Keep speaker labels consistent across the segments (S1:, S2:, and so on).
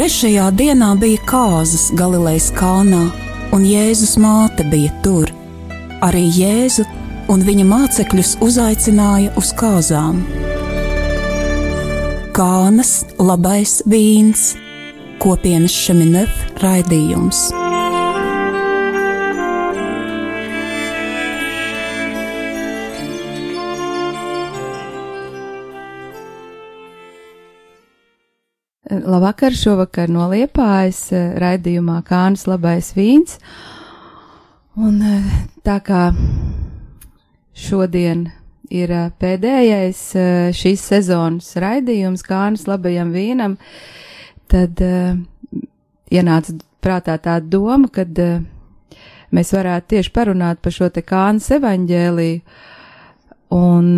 S1: Trešajā dienā bija kāzas Galilejas kalnā, un Jēzus māte bija tur. Arī Jēzu un viņa mācekļus uzaicināja uz kāzām. Kānas labais vīns, kopienas Šeminef raidījums.
S2: Labvakar, šovakar no Liepājas raidījumā Kānas labais vīns. Un tā kā šodien ir pēdējais šīs sezonas raidījums Kānas labajam vīnam, tad ienāca prātā tā doma, kad mēs varētu tieši parunāt par šo te Kānas evaņģēliju. Un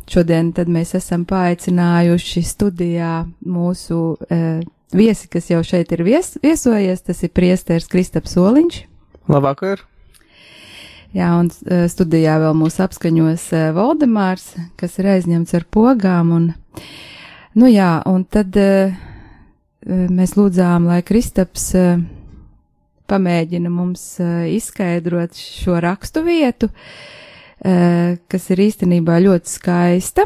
S2: šodien tad mēs esam paaicinājuši studijā mūsu viesi, kas jau šeit ir viesojies, tas ir priesteris Kristaps Soliņš.
S3: Labvakar!
S2: Jā, un studijā vēl mūs apskaņos Voldemārs, kas ir aizņemts ar pogām, un, nu jā, un tad mēs lūdzām, lai Kristaps pamēģina mums izskaidrot šo rakstu vietu, kas ir īstenībā ļoti skaista,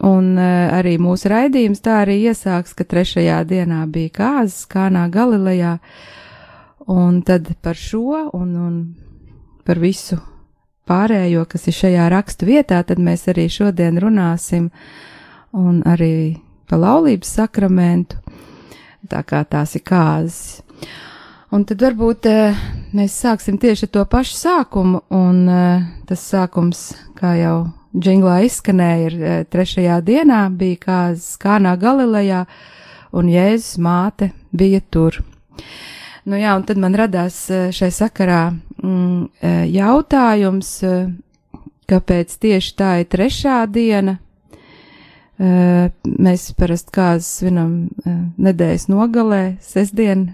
S2: un arī mūsu raidījums tā arī iesāks, ka trešajā dienā bija kāzas Kānā Galilejā, un tad par šo un par visu pārējo, kas ir šajā rakstu vietā, tad mēs arī šodien runāsim, un arī par laulības sakramentu, tā kā tās ir kāzas. Un tad varbūt mēs sāksim tieši ar to pašu sākumu, un tas sākums, kā jau džinglā izskanēja, ir trešajā dienā bija kāzas Kānā Galilejā, un Jēzus māte bija tur. Nu jā, un tad man radās šai sakarā jautājums, kāpēc tieši tā ir trešā diena. Mēs parasti kāzas svinam nedēļas nogalē, sestdien,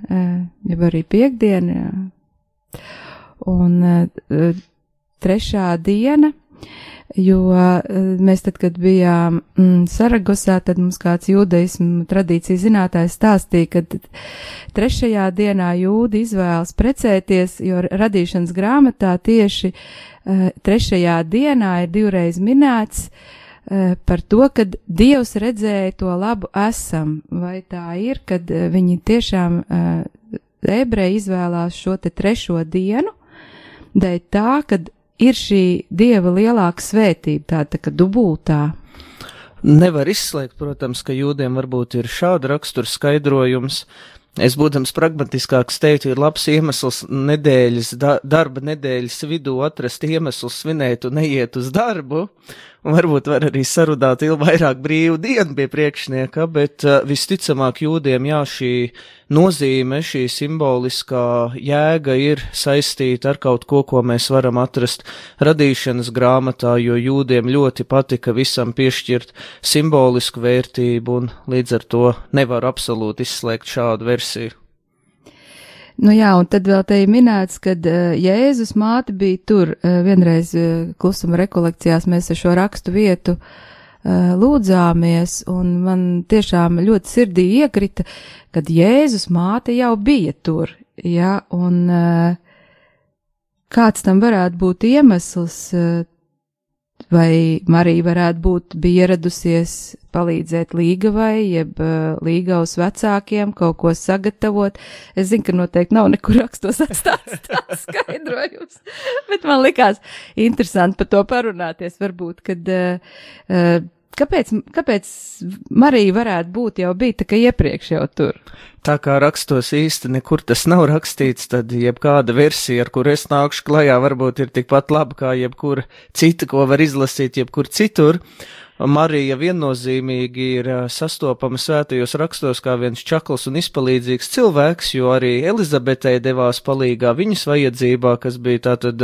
S2: jau arī piekdien, jā. Un trešā diena, jo mēs tad, kad bijām Saragosā, tad mums kāds jūdaismu tradīciju zinātājs stāstīja, ka trešajā dienā jūdi izvēlas precēties, jo radīšanas grāmatā tieši trešajā dienā ir divreiz minēts par to, kad Dievs redzēja to labu esam, vai tā ir, kad viņi tiešām ebreji izvēlās šo te trešo dienu, dēļ tā, kad ir šī Dieva lielāka svētība, tā kā dubultā.
S3: Nevar izslēgt, protams, ka jūdiem varbūt ir šāda rakstura skaidrojums. Es, būdams pragmatiskāks, teiktu, ir labs iemesls nedēļas, darba nedēļas vidū atrast iemeslu svinēt un neiet uz darbu, un varbūt var arī sarudāt vairāk brīvu dienu pie priekšnieka, bet visticamāk jūdiem, jā, šī nozīme, šī simboliskā jēga ir saistīta ar kaut ko, ko mēs varam atrast radīšanas grāmatā, jo jūdiem ļoti patika visam piešķirt simbolisku vērtību, un līdz ar to nevar absolūti izslēgt šādu versiju.
S2: Nu jā, un tad vēl te ir minēts, kad Jēzus māte bija tur. Vienreiz klusuma rekolekcijās mēs ar šo rakstu vietu lūdzāmies, un man tiešām ļoti sirdī iekrita, kad Jēzus māte jau bija tur, ja, un kāds tam varētu būt iemesls, vai Marija varētu būt bija ieradusies palīdzēt Līgavai, jeb Līgavas vecākiem kaut ko sagatavot. Es zinu, ka noteikti nav nekur rakstos atstāts tāds skaidrojums, bet man likās interesanti par to parunāties, varbūt, kad kāpēc Marija varētu būt jau bija tā kā iepriekš jau tur?
S3: Tā kā rakstos īsti nekur tas nav rakstīts, tad jebkāda versija, ar kur es nākšu klajā, varbūt ir tikpat laba kā jebkura cita, ko var izlasīt jebkur citur. Marija viennozīmīgi ir sastopama svētajos rakstos kā viens čakls un izpalīdzīgs cilvēks, jo arī Elizabetei devās palīgā viņas vajadzībā, kas bija tātad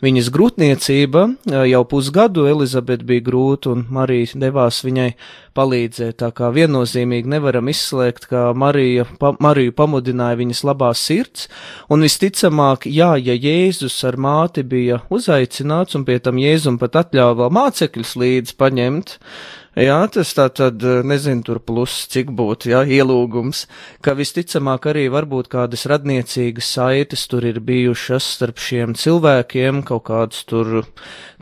S3: viņas grūtniecība. Jau pusgadu Elizabete bija grūta un Marija devās viņai palīdzēt, tā kā viennozīmīgi nevaram izslēgt, ka Mariju pamudināja viņas labā sirds, un visticamāk, jā, ja Jēzus ar māti bija uzaicināts, un pie tam Jēzum pat atļāva vēl mācekļus līdz paņemt, Jā, tas tā tad, nezinu, tur plus, cik būtu, jā, ielūgums, ka visticamāk arī varbūt kādas radniecīgas saites tur ir bijušas starp šiem cilvēkiem, kaut kāds tur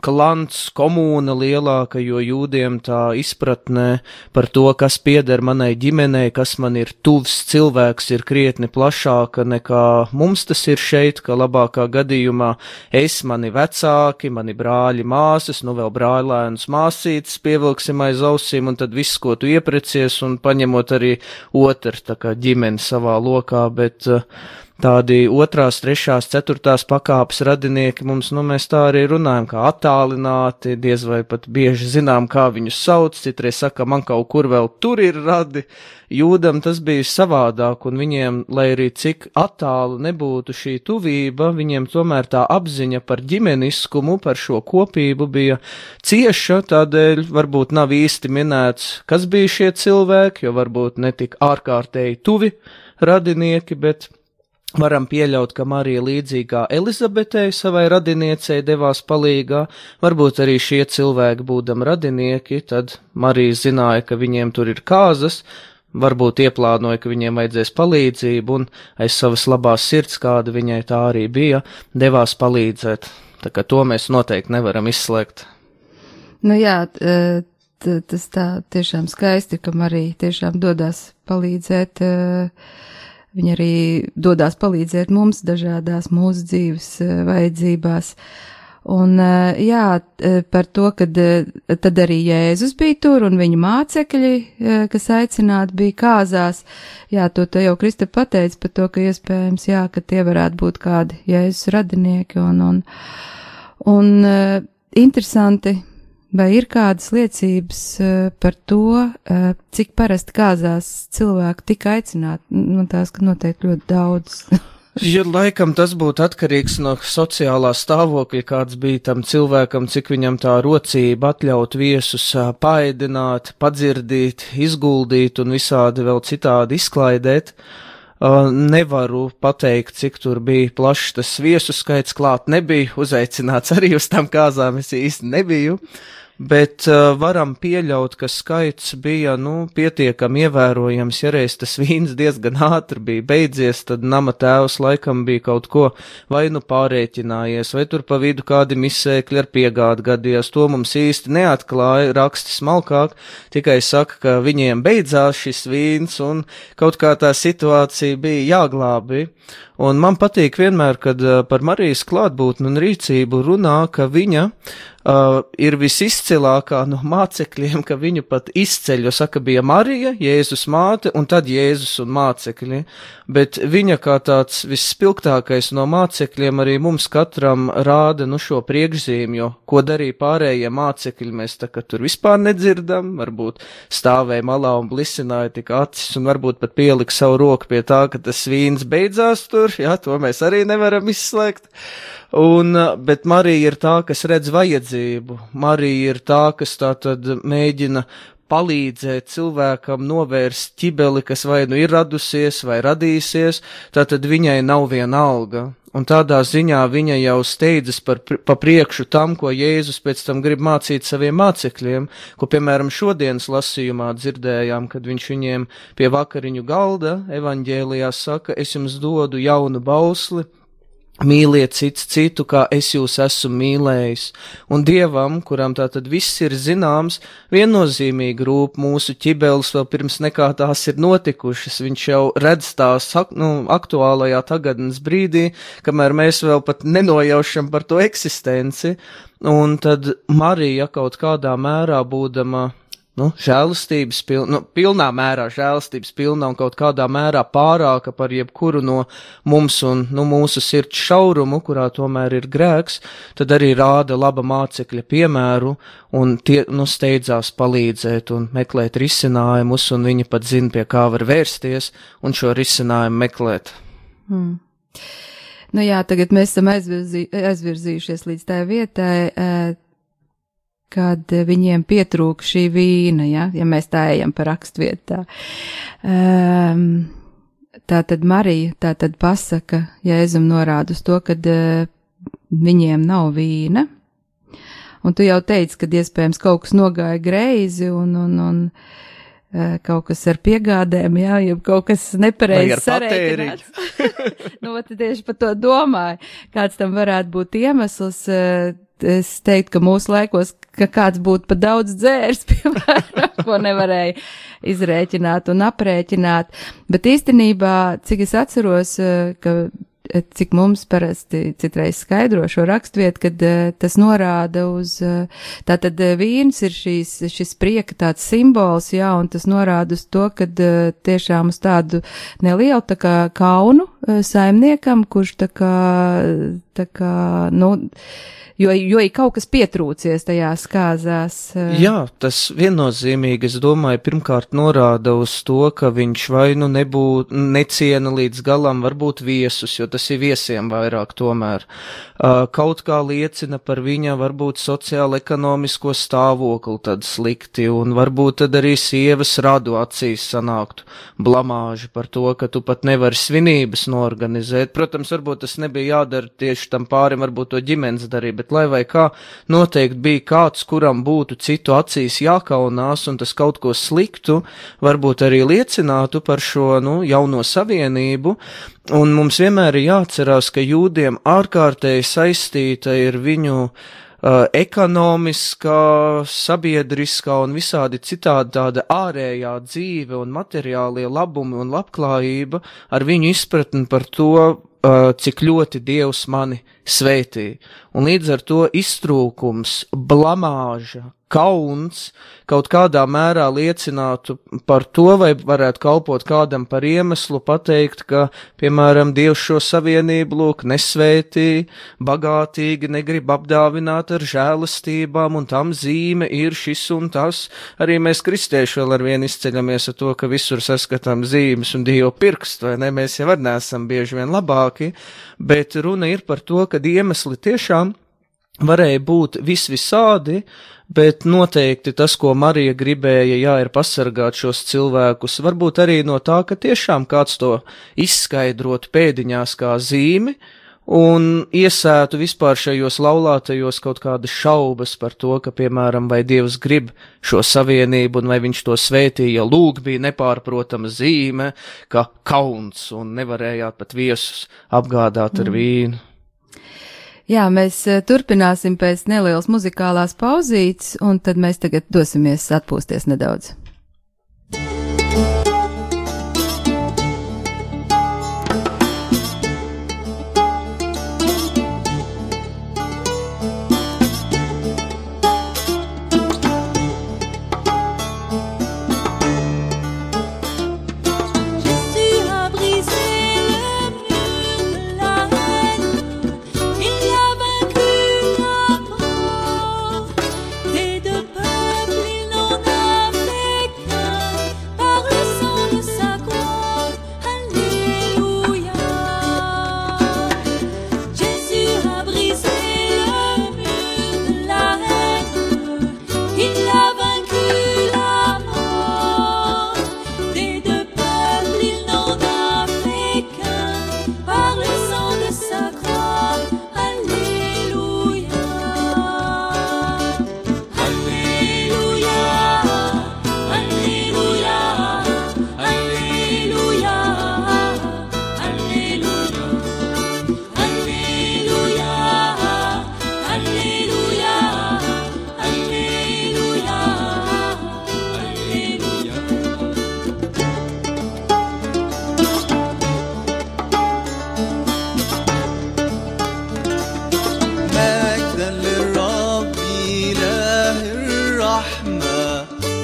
S3: klants, komūna lielāka, jo jūdiem tā izpratnē par to, kas pieder manai ģimenei, kas man ir tuvs cilvēks, ir krietni plašāka nekā mums tas ir šeit, ka labākā gadījumā es, mani vecāki, mani brāļi, māsas, nu vēl brāļēnus māsītes pievilksim aiz ausīm, un tad viss, ko tu ieprecies, un paņemot arī otru, tā kā ģimeni savā lokā, bet tādi 2., 3., 4. pakāpes radinieki mums, nu mēs tā arī runājam, kā attālināti, diez vai pat bieži zinām, kā viņus sauc, citreiz saka, man kaut kur vēl tur ir radi. Jūdam tas bija savādāk, un viņiem, lai arī cik attālu nebūtu šī tuvība, viņiem tomēr tā apziņa par ģimeniskumu, par šo kopību bija cieša, tādēļ varbūt nav īsti minēts, kas bija šie cilvēki, jo varbūt netik ārkārtēji tuvi radinieki, bet varam pieļaut, ka Marija līdzīgā Elizabetei savai radiniecei devās palīgā, varbūt arī šie cilvēki būdam radinieki, tad Marija zināja, ka viņiem tur ir kāzas, varbūt ieplānoja, ka viņiem vajadzēs palīdzību, un aiz savas labās sirds, kāda viņai tā arī bija, devās palīdzēt. Tā kā to mēs noteikti nevaram izslēgt.
S2: Nu jā, tas tā tiešām skaisti, ka Marija tiešām dodās palīdzēt, viņa arī dodās palīdzēt mums dažādās mūsu dzīves vajadzībās. Un jā, par to, kad tad arī Jēzus bija tur un viņa mācekļi, kas aicināti bija kāzās, jā, to jau Krista pateica par to, ka iespējams, jā, ka tie varētu būt kādi Jēzus radinieki un interesanti, vai ir kādas liecības par to, cik parasti kāzās cilvēku tika aicināti, nu tās, ka noteikti ļoti daudz.
S3: Ja laikam tas būtu atkarīgs no sociālā stāvokļa, kāds bija tam cilvēkam, cik viņam tā rocība atļaut viesus paēdināt, padzirdīt, izguldīt un visādi vēl citādi izklaidēt. Nevaru pateikt, cik tur bija plašs tas viesu skaits, klāt nebija, uzaicināts arī uz tām kāzām, es īsti nebiju. Bet varam pieļaut, ka skaits bija, nu, pietiekami ievērojams, ja reiz tas vīns diezgan ātri bija beidzies, tad nama tēvs laikam bija kaut ko vai nu pārēķinājies, vai tur pa vidu kādi misēkļi ar piegādi gadījās, to mums īsti neatklāja, raksti smalkāk, tikai saka, ka viņiem beidzās šis vīns un kaut kā tā situācija bija jāglābi. Un man patīk vienmēr, kad par Marijas klātbūtni un rīcību runā, ka viņa ir visizcilākā no mācekļiem, ka viņu pat izceļ, jo saka, bija Marija, Jēzus māte un tad Jēzus un mācekļi, bet viņa kā tāds visspilgtākais no mācekļiem arī mums katram rāda, nu, šo priekšzīmi, jo ko darīja pārējie mācekļi, mēs tā kā tur vispār nedzirdam, varbūt stāvēja malā un blisināja tik acis un varbūt pat pielika savu roku pie tā, ka tas vīns beidzās tur, jā, to mēs arī nevaram izslēgt. Bet Marija ir tā, kas redz vajadzību. Marija ir tā, kas tā tad mēģina palīdzēt cilvēkam novērst ķibeli, kas vai nu ir radusies vai radīsies, tātad viņai nav viena alga. Un tādā ziņā viņa jau steidzas pa priekšu tam, ko Jēzus pēc tam grib mācīt saviem mācekļiem, ko, piemēram, šodienas lasījumā dzirdējām, kad viņš viņiem pie vakariņu galda evaņģēlijā saka, es jums dodu jaunu bausli, mīliet cits citu, kā es jūs esmu mīlējis. Un Dievam, kuram tātad viss ir zināms, viennozīmīgi rūp mūsu ķibeles vēl pirms nekā tās ir notikušas. Viņš jau redz tās aktuālajā tagadnes brīdī, kamēr mēs vēl pat nenojaušam par to eksistenci. Un tad Marija kaut kādā mērā būdama žēlastības pilnā mērā žēlastības pilna un kaut kādā mērā pārāka par jebkuru no mums un mūsu sirds šaurumu, kurā tomēr ir grēks, tad arī rāda laba mācekļa piemēru un tie steidzās palīdzēt un meklēt risinājumus, un viņi pat zina, pie kā var vērsties un šo risinājumu meklēt.
S2: Nu jā, tagad mēs esam aizvirzījušies līdz tā vietai, kad viņiem pietrūka šī vīna, ja mēs tā ejam pa rakstvietā. Tātad Marija tātad pasaka, Jēzum norāda uz to, kad viņiem nav vīna, Un tu jau teici, ka iespējams kaut kas nogāja greizi un kaut kas ar piegādēm, jā, ja kaut kas nepareizi sarēķināts. Nu, tad tieši par to domāju, kāds tam varētu būt iemesls. Es teiktu, ka mūsu laikos, ka kāds būtu pa daudz dzērs, piemēram, ko nevarēja izrēķināt un aprēķināt. Bet īstenībā, cik es atceros, cik mums parasti citreiz skaidro šo raksturvietu, kad tas norāda uz, tātad vīns ir šis prieka tāds simbols, jā, un tas norāda uz to, kad tiešām uz tādu nelielu tā kā kaunu saimniekam, kurš tā kā, nu, jo ir kaut kas pietrūcies tajās kāzās.
S3: Jā, tas viennozīmīgi, es domāju, pirmkārt norāda uz to, ka viņš vai nu neciena līdz galam varbūt viesus, jo tas ir viesiem vairāk tomēr. Kaut kā liecina par viņa varbūt sociālo-ekonomisko stāvokli tad slikti, un varbūt tad arī sievas radu acīs sanāktu blamāži par to, ka tu pat nevari svinības norganizēt. Protams, varbūt tas nebija jādara tieši tam pārim, varbūt to ģimenes darīja, bet lai vai kā, noteikti bija kāds, kuram būtu citu acīs jākaunās, un tas kaut ko sliktu varbūt arī liecinātu par šo, jauno savienību, un mums vienmēr ir jāatcerās, ka jūdiem ārkārtēji saistīta ir viņu ekonomiskā, sabiedriskā un visādi citādi tāda ārējā dzīve un materiālie labumi un labklājība ar viņu izpratni par to, cik ļoti Dievs mani svētī. Un līdz ar to iztrūkums, blamāža, kauns kaut kādā mērā liecinātu par to, vai varētu kalpot kādam par iemeslu pateikt, ka, piemēram, Dievs šo savienību lūk nesvētī, bagātīgi negrib apdāvināt ar žēlastībām, un tam zīme ir šis un tas. Arī mēs kristieši vēl ar vienu izceļamies ar to, ka visur saskatām zīmes un Dieva pirkstu, vai ne? Mēs jau arī neesam bieži vien labāki, bet runa ir par to, ka iemesli tiešām varēja būt visādi, bet noteikti tas, ko Marija gribēja, ir pasargāt šos cilvēkus, varbūt arī no tā, ka tiešām kāds to izskaidrot pēdiņās kā zīmi un iesētu vispār šajos laulātajos kaut kādas šaubas par to, ka, piemēram, vai Dievs grib šo savienību un vai viņš to svētīja, lūk bija nepārprotama zīme, ka kauns un nevarējāt pat viesus apgādāt ar vīnu.
S2: Jā, mēs turpināsim pēc nelielas muzikālās pauzītes, un tad mēs tagad dosimies atpūsties nedaudz.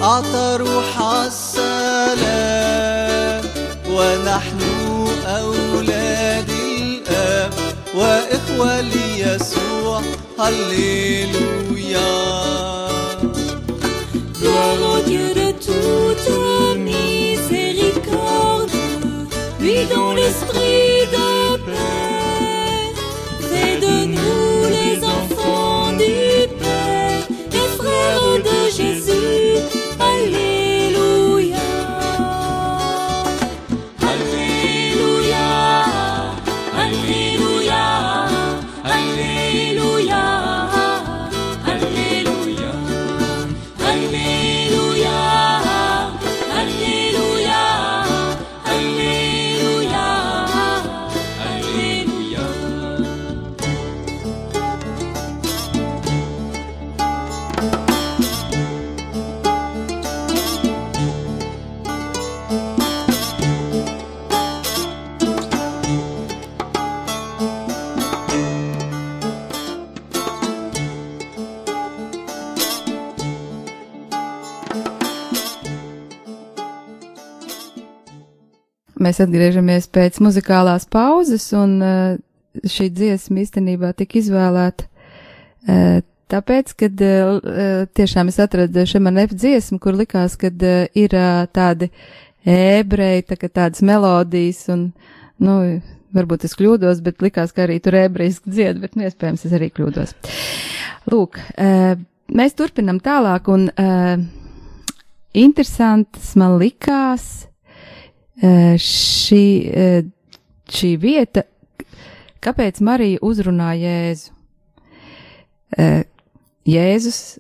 S4: أعطى روح السلام ونحن أولاد الآب وإخوة ليسوع هللويا.
S5: Gloire au Dieu de toute miséricorde, lui dont l'esprit de paix fait de nous les enfants du Père, les frères de Jésus. Alléluia, Alléluia, Alléluia, Alléluia, Alléluia.
S2: mēs atgriežamies pēc muzikālās pauzes, un šī dziesma īstenībā tika izvēlēta tāpēc, kad tiešām es atradu Šemanef dziesmu, kur likās, kad ir tādi ebreji, tādas melodijas, un, varbūt es kļūdos, bet likās, ka arī tur ebrejiski dzied, bet iespējams es arī kļūdos. Lūk, mēs turpinam tālāk, un interesants man likās šī vieta, kāpēc Marija uzrunā Jēzu. Jēzus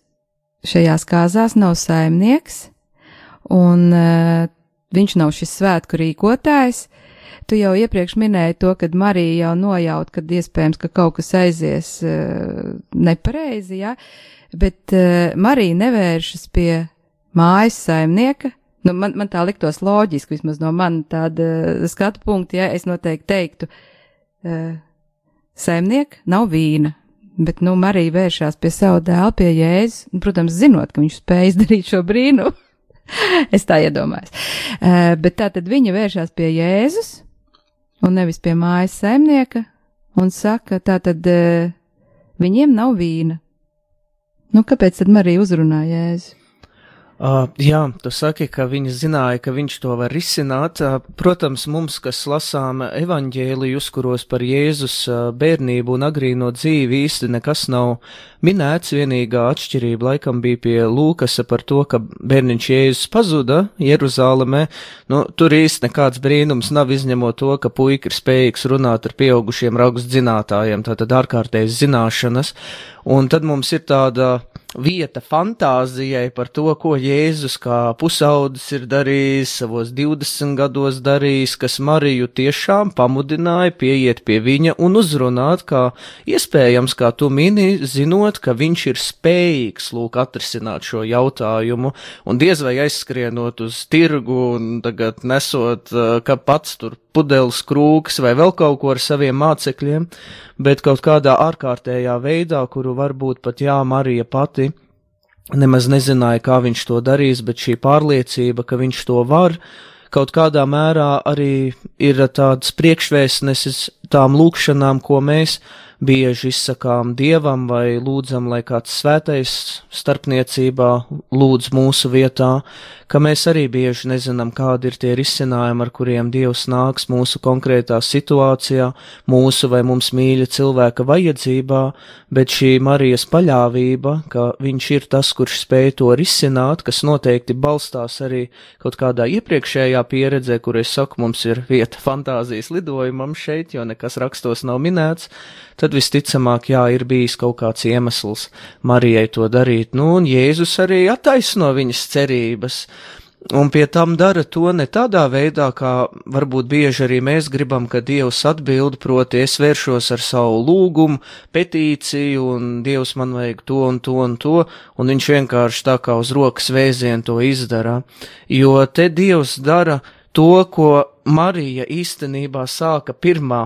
S2: šajās kāzās nav saimnieks, un viņš nav šis svētku rīkotājs. Tu jau iepriekš minēji to, kad Marija jau nojaut, kad iespējams, ka kaut kas aizies nepareizi, ja? Bet Marija nevēršas pie mājas saimnieka. Man tā liktos loģiski, vismaz no man tāda skatu punkta, ja es noteikti teiktu, saimnieka nav vīna. Bet, Marija vēršās pie savu dēlu, pie Jēzus, un, protams, zinot, ka viņš spēj izdarīt šo brīnumu. Es tā iedomājos. Bet tātad viņa vēršās pie Jēzus, un nevis pie mājas saimnieka, un saka, tātad viņiem nav vīna. Kāpēc tad Marija uzrunā Jēzu?
S3: Jā, tu saki, ka viņi zināja, ka viņš to var risināt. Protams, mums, kas lasām evaņģēlijus, kuros par Jēzus bērnību un agrīno dzīvi īsti nekas nav minēts, vienīgā atšķirība laikam bija pie Lūkasa par to, ka bērniņš Jēzus pazuda Jeruzālemē. Tur īsti nekāds brīnums nav, izņemot to, ka puika ir spējīgs runāt ar pieaugušiem rakstzinātājiem, tātad ārkārtējas zināšanas. Un tad mums ir tāda vieta fantāzijai par to, ko Jēzus kā pusaudzis ir darījis, savos 20 gados darījis, kas Mariju tiešām pamudināja pieiet pie viņa un uzrunāt, kā iespējams, kā tu mini, zinot, ka viņš ir spējīgs atrisināt šo jautājumu, un diez vai aizskrienot uz tirgu un tagad nesot, ka pats tur pudeles krūks vai vēl kaut ko ar saviem mācekļiem, bet kaut kādā ārkārtējā veidā, kuru varbūt pat Marija pati nemaz nezināja, kā viņš to darīs, bet šī pārliecība, ka viņš to var, kaut kādā mērā arī ir tāds priekšvēstnesis tām lūkšanām, ko mēs bieži izsakām Dievam vai lūdzam, lai kāds svētais starpniecībā lūdz mūsu vietā, ka mēs arī bieži nezinām, kādi ir tie risinājumi, ar kuriem Dievs nāks mūsu konkrētā situācijā, mūsu vai mums mīļa cilvēka vajadzībā, bet šī Marijas paļāvība, ka viņš ir tas, kurš spēj to risināt, kas noteikti balstās arī kaut kādā iepriekšējā pieredzē, kur es saku, mums ir vieta fantāzijas lidojumam šeit, jo nekas rakstos nav minēts, tad visticamāk, ir bijis kaut kāds iemesls Marijai to darīt. Un Jēzus arī attaisno viņas cerības, un pie tam dara to ne tādā veidā, kā varbūt bieži arī mēs gribam, ka Dievs atbild, proti es vēršos ar savu lūgumu, petīciju, un Dievs man vajag to un to un to, un viņš vienkārši tā kā uz rokas vēzienu to izdara, jo te Dievs dara to, ko Marija īstenībā sāka pirmā.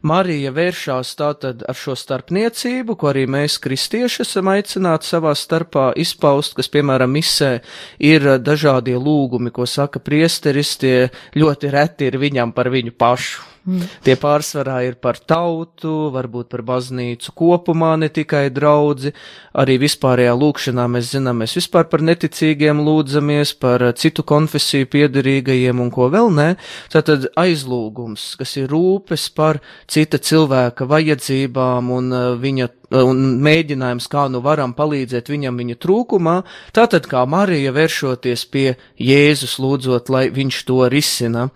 S3: Marija vēršās tātad ar šo starpniecību, ko arī mēs kristieši esam aicināti savā starpā izpaust, kas, piemēram, misē ir dažādie lūgumi, ko saka priesteris, tie ļoti reti ir viņam par viņu pašu. Tie pārsvarā ir par tautu, varbūt par baznīcu kopumā, ne tikai draudzi, arī vispārējā lūkšanā mēs zinām, mēs vispār par neticīgiem lūdzamies, par citu konfesiju piederīgajiem un ko vēl ne. Tātad aizlūgums, kas ir rūpes par cita cilvēka vajadzībām un mēģinājums, kā varam palīdzēt viņam viņa trūkumā, tātad kā Marija vēršoties pie Jēzus lūdzot, lai viņš to risina.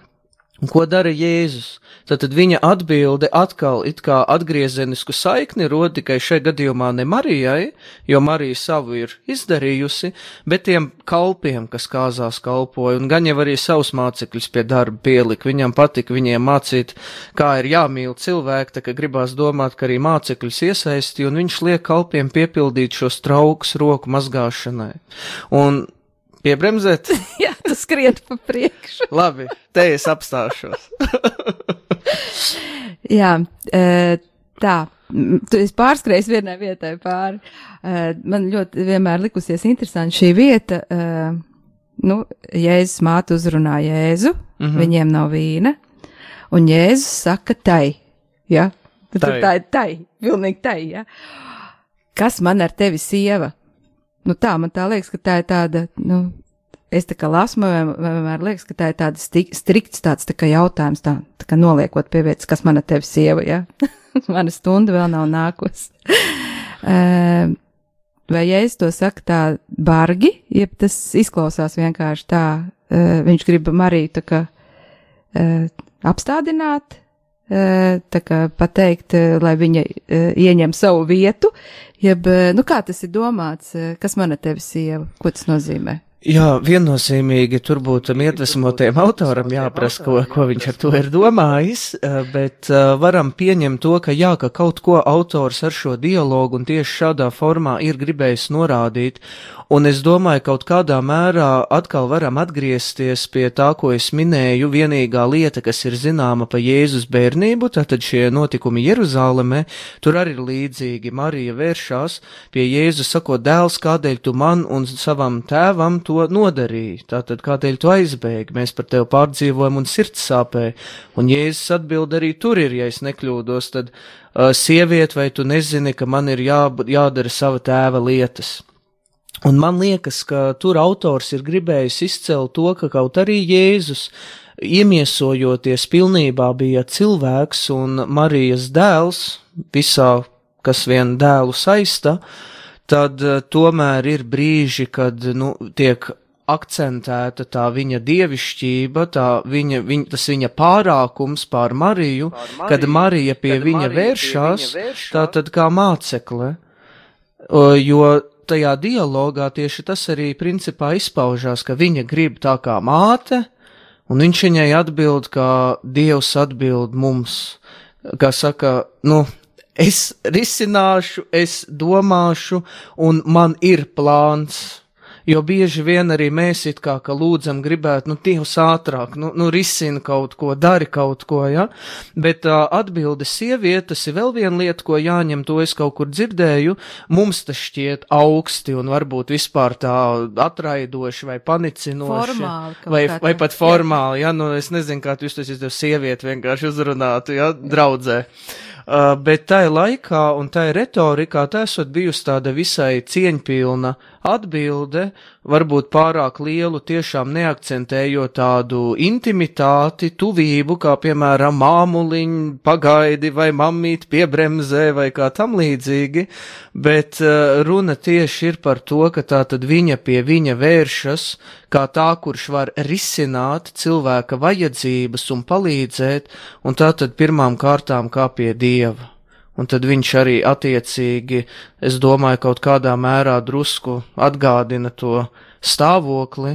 S3: Un ko dara Jēzus? Tātad viņa atbilde atkal it kā atgriezenisku saikni rod tikai šajā gadījumā ne Marijai, jo Marija savu ir izdarījusi, bet tiem kalpiem, kas kāzās kalpoja, un gan jau arī savus mācekļus pie darba pielika. Viņam patika viņiem mācīt, kā ir jāmīl cilvēki, tā ka gribās domāt, ka arī mācekļus iesaisti, un viņš liek kalpiem piepildīt šos traukus roku mazgāšanai. Un piebremzēt?
S2: Jā, tu skrien pa priekšu.
S3: Labi, te es apstāšos.
S2: Jā, tā, es pārskrēju vienai vietai pāri. Man ļoti vienmēr likusies interesanti šī vieta. Jēzus māte uzrunā Jēzu, viņiem nav vīna. Un Jēzus saka tai, ja?
S3: Tai.
S2: Tā ir tai, pilnīgi tai, ja? Kas man ar tevi, sieva? Nu tā, man tā liekas, ka tā ir tāda, nu, es tā kā lasmu, vienmēr liekas, ka tā ir tāda strikts tāds tā kā jautājums, tā kā noliekot pie vietas, kas man ar tevi, sieva, ja? Mana stunda vēl nav nākos. Vai ja es to saku tā bargi, jeb tas izklausās vienkārši tā, viņš grib Mariju tā kā apstādināt, tā kā pateikt, lai viņa ieņem savu vietu, jeb, nu kā tas ir domāts, kas man ar tevi, sieva, ko tas nozīmē?
S3: Jā, viennozīmīgi tur būtu iedvesmotajam autoram jāprasa, ko viņš ar to ir domājis, bet varam pieņemt to, ka jā, ka kaut ko autors ar šo dialogu un tieši šādā formā ir gribējis norādīt, un es domāju, kaut kādā mērā atkal varam atgriezties pie tā, ko es minēju, vienīgā lieta, kas ir zināma pa Jēzus bērnību, tātad šie notikumi Jeruzālemē, tur arī ir līdzīgi. Marija vēršās pie Jēzus, sakot, dēls, kādēļ tu man un savam tēvam to nodarīja, tātad kādēļ tu aizbēgi, mēs par tevi pārdzīvojam un sirds sāpēja, un Jēzus atbild arī tur ir, ja es nekļūdos, tad sieviet, vai tu nezini, ka man ir jādara sava tēva lietas. Un man liekas, ka tur autors ir gribējis izcelt to, ka kaut arī Jēzus, iemiesojoties pilnībā bija cilvēks un Marijas dēls, visā, kas vien dēlu saista, tad tomēr ir brīži, kad, nu, tiek akcentēta tā viņa dievišķība, tas viņa pārākums pār Mariju, kad Marija pie viņa vēršās, tātad kā mācekle, jo tajā dialogā tieši tas arī principā izpaužās, ka viņa grib tā kā māte, un viņš viņai atbild, kā Dievs atbild mums, kā saka, nu, es risināšu, es domāšu, un man ir plāns. Jo bieži vien arī mēs it kā lūdzam gribētu, nu, Dievs ātrāk, nu, risina kaut ko, dari kaut ko, ja? Bet atbilde sieviete, tas ir vēl viena lieta, ko jāņem, to es kaut kur dzirdēju, mums tas šķiet augsti un varbūt vispār tā atraidoši vai panicinoši.
S2: Formāli.
S3: Vai pat formāli, ja, nu, es nezinu, kā tu jūs tas izdev sievieti vienkārši uzrunātu, ja, draudzē. Bet tai laikā un tai retorikā tā esot bijusi tāda visai cieņpilna atbilde, varbūt pārāk lielu tiešām neakcentējot tādu intimitāti, tuvību, kā piemēram māmuliņ, pagaidi vai mammīt piebremzē vai kā tam līdzīgi, bet runa tieši ir par to, ka tā tad viņa pie viņa vēršas, kā tā, kurš var risināt cilvēka vajadzības un palīdzēt, un tā tad pirmām kārtām kā pie Dieva. Un tad viņš arī attiecīgi, es domāju, kaut kādā mērā drusku atgādina to stāvokli,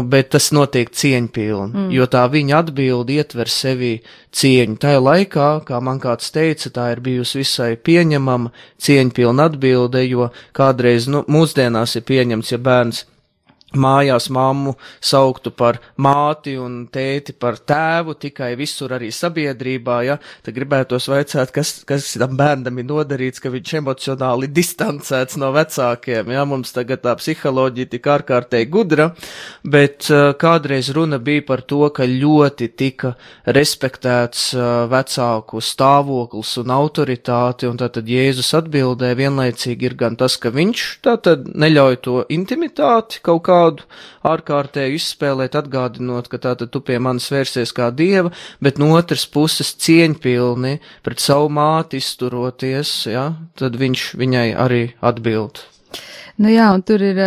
S3: bet tas notiek cieņpilni, jo tā viņa atbildi ietver sevī cieņu. Tajā laikā, kā man kāds teica, tā ir bijusi visai pieņemama cieņpilna atbilde, jo kādreiz, nu, mūsdienās ir pieņemts, ja bērns mājās mammu sauktu par māti un tēti par tēvu, tikai visur arī sabiedrībā, ja, tad gribētos vaicāt, kas tam bērnam ir nodarīts, ka viņš emocionāli distancēts no vecākiem, ja, mums tagad tā psiholoģija tik ārkārtēji gudra, bet kādreiz runa bija par to, ka ļoti tika respektēts vecāku stāvoklis un autoritāti, un tātad Jēzus atbildē vienlaicīgi ir gan tas, ka viņš tātad neļauj to intimitāti kaut kādu ārkārtēju izspēlēt, atgādinot, ka tātad tu pie manis vērsies kā Dieva, bet no otras puses cieņpilni pret savu māti izturoties, ja, tad viņš viņai arī atbild.
S2: Nu jā, un tur ir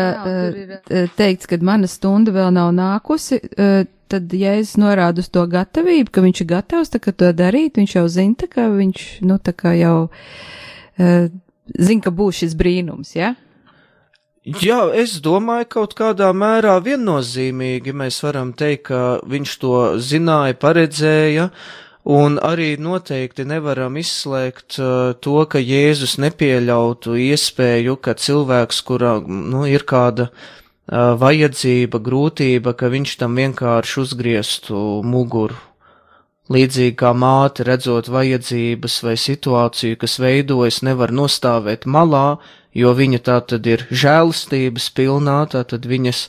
S2: teikts, ka mana stunda vēl nav nākusi, tad, ja es norādu uz to gatavību, ka viņš ir gatavs tā kā to darīt, viņš jau zina, tā kā viņš, nu, tā kā jau zina, ka būs šis brīnums, ja?
S3: Jā, es domāju, kaut kādā mērā viennozīmīgi mēs varam teikt, ka viņš to zināja, paredzēja, un arī noteikti nevaram izslēgt to, ka Jēzus nepieļautu iespēju, ka cilvēks, kurā, nu, ir kāda vajadzība, grūtība, ka viņš tam vienkārši uzgrieztu muguru. Līdzīgi kā māte, redzot vajadzības vai situāciju, kas veidojas, nevar nostāvēt malā, jo viņa tā tad ir žēlastības pilnā, tā tad viņas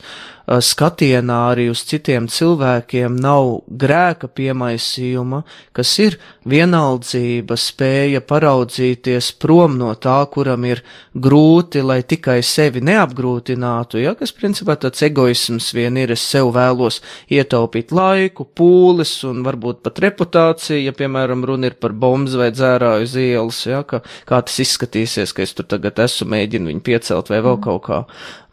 S3: skatienā arī uz citiem cilvēkiem nav grēka piemaisījuma, kas ir vienaldzība, spēja paraudzīties prom no tā, kuram ir grūti, lai tikai sevi neapgrūtinātu, ja, kas principā tāds egoisms vien ir, es sev vēlos ietaupīt laiku, pūles un varbūt pat reputāciju, ja, piemēram, runa ir par bombas vai dzērāju uz ielas, ja, kā tas izskatīsies, ka es tur tagad esmu mēģinu viņu piecelt vai vēl kaut kā.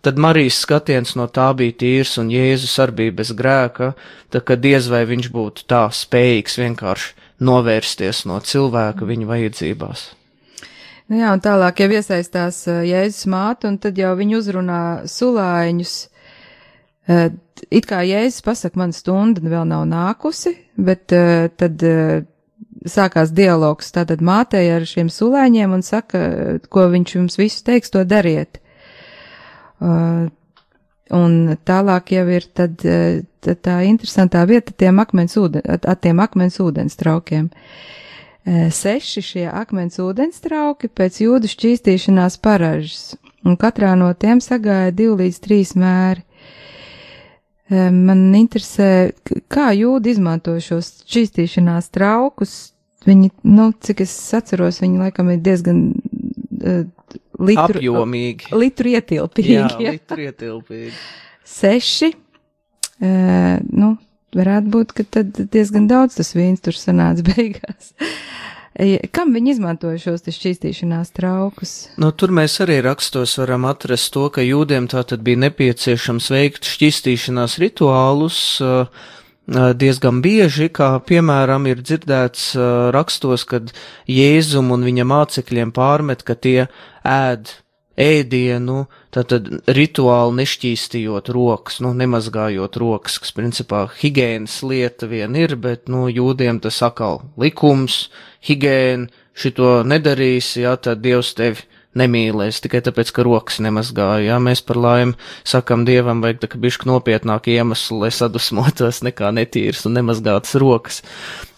S3: Tad Marijas skatiens no tā bija tīrs un Jēzus arī bija bez grēka, tā ka diez vai viņš būtu tā spējīgs vienkārši novērsties no cilvēka viņa vajadzībās.
S2: Nu jā, un tālāk jau iesaistās Jēzus māte, un tad jau viņi uzrunā sulāņus. It kā Jēzus pasaka, man stunda vēl nav nākusi, bet tad sākās dialogs tātad mātei ar šiem sulāņiem un saka, ko viņš jums visu teiks, to dariet. Un tālāk jau ir tad tā interesantā vieta tiem akmens ūdens traukiem. 6 šie akmens ūdens trauki pēc jūdu šķīstīšanās paražas, un katrā no tiem sagāja 2 līdz 3 mēri. Man interesē, kā jūdi izmanto šos šķīstīšanās traukus. Viņi, cik es atceros, viņi laikam ir diezgan
S3: apjomīgi.
S2: Litru ietilpīgi.
S3: Jā, litru ietilpīgi.
S2: 6, varētu būt, ka tad diezgan daudz tas vīns tur sanāca beigās. Kam viņi izmantoja šos šķīstīšanās traukus?
S3: Tur mēs arī rakstos varam atrast to, ka jūdiem tātad bija nepieciešams veikt šķīstīšanās rituālus diezgan bieži, kā piemēram ir dzirdēts rakstos, kad Jēzum un viņa mācekļiem pārmet, ka tie ēd ēdienu, tātad rituāli nešķīstījot rokas, nemazgājot rokas, kas principā higienas lieta vien ir, bet, jūdiem tas atkal likums, higēna, šito nedarīs, jā, tad Dievs tevi nemīlēs, tikai tāpēc, ka rokas nemazgāja, jā, mēs par laimi sakam Dievam, vajag tā, ka bišķi nopietnāk iemeslu, lai sadusmotos nekā netīras un nemazgātas rokas.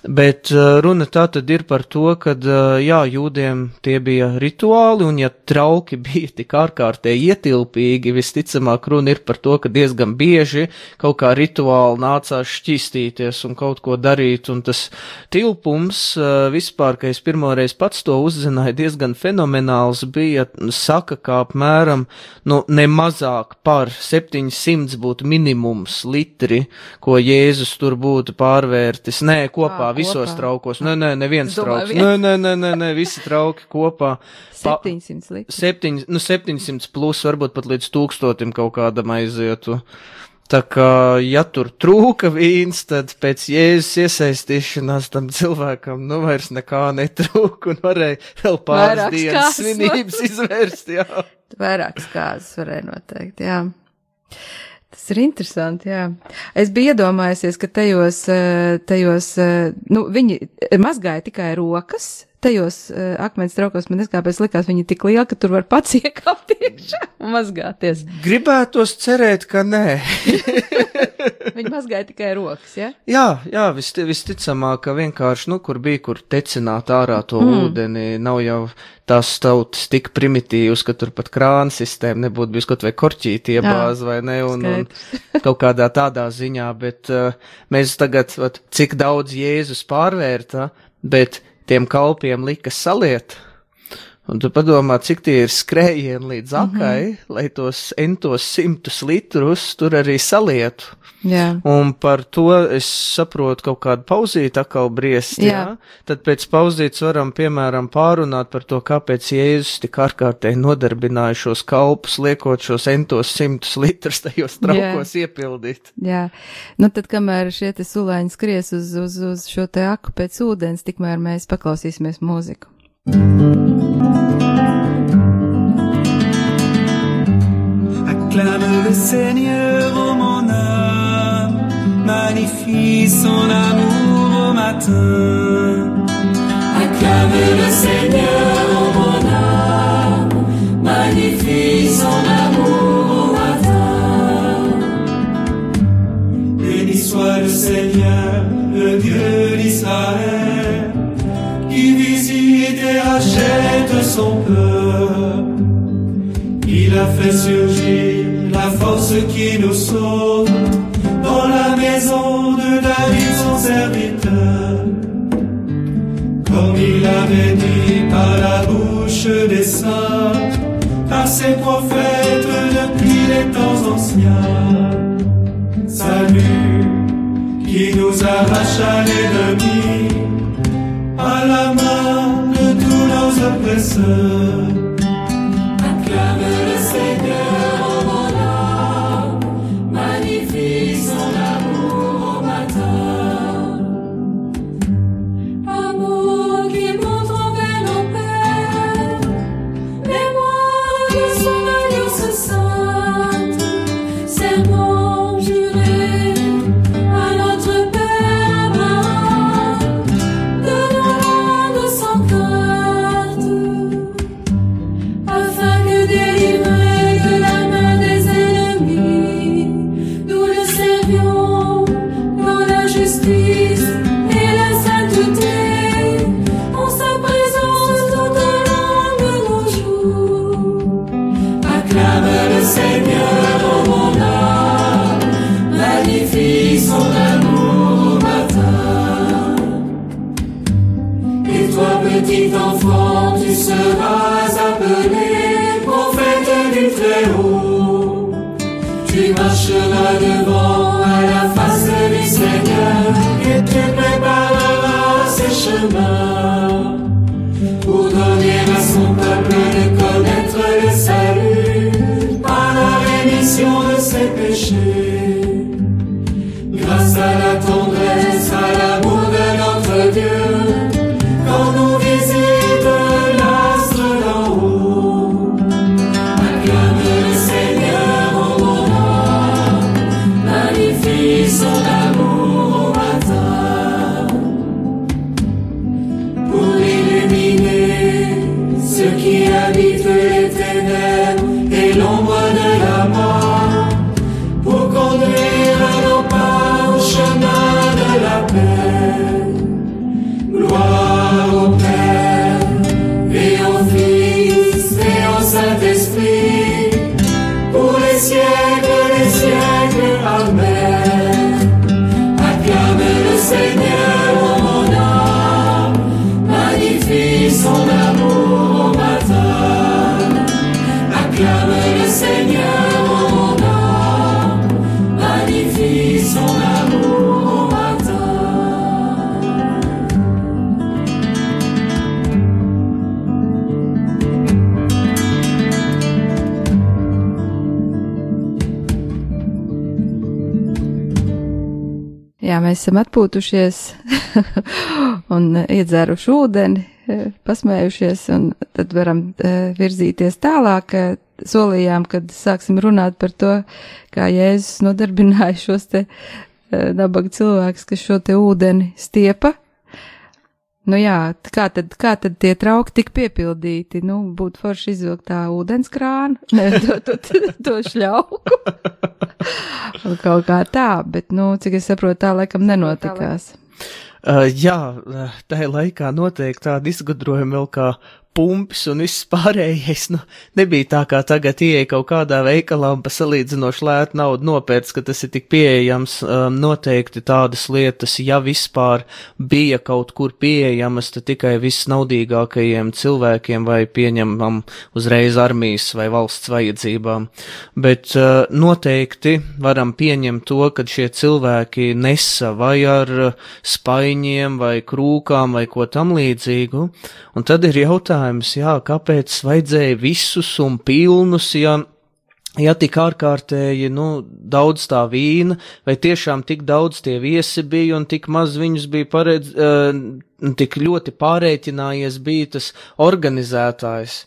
S3: Bet runa tā tad ir par to, kad, jā, jūdiem tie bija rituāli, un ja trauki bija tik ārkārtēji ietilpīgi, visticamāk runa ir par to, ka diezgan bieži kaut kā rituāli nācās šķīstīties un kaut ko darīt, un tas tilpums vispār, ka es pirmoreiz pats to uzzināju, diezgan fenomenāls bija, saka, kā apmēram, ne mazāk par 700 būtu minimums litri, ko Jēzus tur būtu pārvērtis, kopā visos traukos. Neviens trauks. Nē, visi trauki kopā.
S2: 700 litri.
S3: 700 plus, varbūt pat līdz 1000 kaut kādam aizietu. Tā kā, ja tur trūka vīns, tad pēc Jēzus iesaistīšanās tam cilvēkam, vairs nekā netrūka un varēja vēl pāris dienas svinības izvērst, jā.
S2: Vairākas kāzas varēja noteikt, jā. Tas ir interesanti, jā. Es biju iedomājusies, ka tajos, viņi mazgāja tikai rokas, tajos akmens traukos, man kāpēc likās viņi tik lieli, ka tur var pats iekāpt iekšā un mazgāties.
S3: Gribētos cerēt, ka nē.
S2: Viņi mazgāja tikai rokas, ja?
S3: Jā, visticamāk, ka vienkārši, kur bija, kur tecināt ārā to ūdeni, nav jau tās tautas tik primitīvas, ka tur pat krāna sistēma nebūtu bijis kaut vai korķīti iebāz vai ne, un kaut kādā tādā ziņā, bet mēs tagad, cik daudz Jēzus pārvērta, bet tiem kalpiem lika saliet, un tu padomā, cik tie ir skrējieni līdz akai, lai tos 100 litrus tur arī salietu.
S2: Jā.
S3: Un par to es saprotu kaut kādu pauzīti atkal briest, jā. Tad pēc pauzītes varam, piemēram, pārunāt par to, kāpēc Jēzus tik ārkārtēji nodarbināja šos kalpus, liekot šos 100 litrus tajos traukos iepildīt.
S2: Jā, tad kamēr šie te sulāņi skries uz šo te aku pēc ūdens, tikmēr mēs paklausīsimies mūziku.
S6: Acclame le Seigneur, ô mon âme, magnifie son amour au matin.
S5: Acclame le Seigneur, ô mon âme, magnifie son amour au matin.
S6: Béni soit le Seigneur, le Dieu d'Israël, qui visite et rachète son peuple. a fait surgir la force qui nous sauve dans la maison de David son serviteur. Comme il avait dit par la bouche des saints, par ses prophètes depuis les temps anciens. Salut qui nous arrache à l'ennemi, à la main de tous nos oppresseurs.
S5: Acclame le Seigneur en mon âme, magnifie son amour au matin. Amour qui montre envers nos pères, mémoire de son alliance sainte, serment juré à notre Père Abraham, de nous rendre sans crainte, afin que délivrés de la main des ennemis, nous le servions dans la justice et la sainteté, en sa présence tout au long de nos jours. Acclame le Seigneur, ô mon âme, magnifie son amour au matin. Et toi, petit enfant, tu seras appelé prophète du Très-Haut. Tu marcheras devant à la face du Seigneur et tu prépareras ses chemins pour donner à son peuple de connaître le salut par la rémission de ses péchés. Grâce à la tendresse, à l'amour de notre Dieu, quand nous visite l'astre d'en haut. Acclame le Seigneur en mon âme, magnifie son amour au matin. Pour illuminer ceux qui habitent les ténèbres et l'ombre de la mort, pour conduire nos pas au chemin de la paix. Gloire au Père et au Fils et au Saint-Esprit, pour les siècles des siècles. Amen. Acclame le Seigneur en mon âme, magnifie son amour au matin. Acclame le Seigneur en mon âme, magnifie son amour au matin.
S2: Jā, mēs esam atpūtušies un iedzēruši ūdeni, pasmējušies, un tad varam virzīties tālāk. Solījām, kad sāksim runāt par to, kā Jēzus nodarbināja šos te nabaga cilvēkus, kas šo te ūdeni stiepa. Nu jā, kā tad tie trauki tik piepildīti? Nu, būtu forši izvilkt tā ūdenskrānu, to šļauku. Un kaut kā tā, bet, nu, cik es saprotu, tā laikam nenotikās.
S3: Jā, tajā laikā noteikti tāda izgudrojuma vēl kā pumpis un viss pārējais, nu, nebija tā kā tagad ieeja kaut kādā veikalā un pa salīdzinoši lētu naudu nopērts, ka tas ir tik pieejams. Noteikti tādas lietas, ja vispār bija kaut kur pieejamas, tad tikai visnaudīgākajiem cilvēkiem vai pieņemam uzreiz armijas vai valsts vajadzībām. Bet noteikti varam pieņemt to, ka šie cilvēki nesa vai ar spaiņiem vai krūkām vai ko tam līdzīgu, un tad ir jautājums, jā, kāpēc vajadzēja visus un pilnus, ja tik ārkārtēji, nu, daudz tā vīna, vai tiešām tik daudz tie viesi bija un tik maz viņus bija tik ļoti pārēķinājies bija tas organizētājs.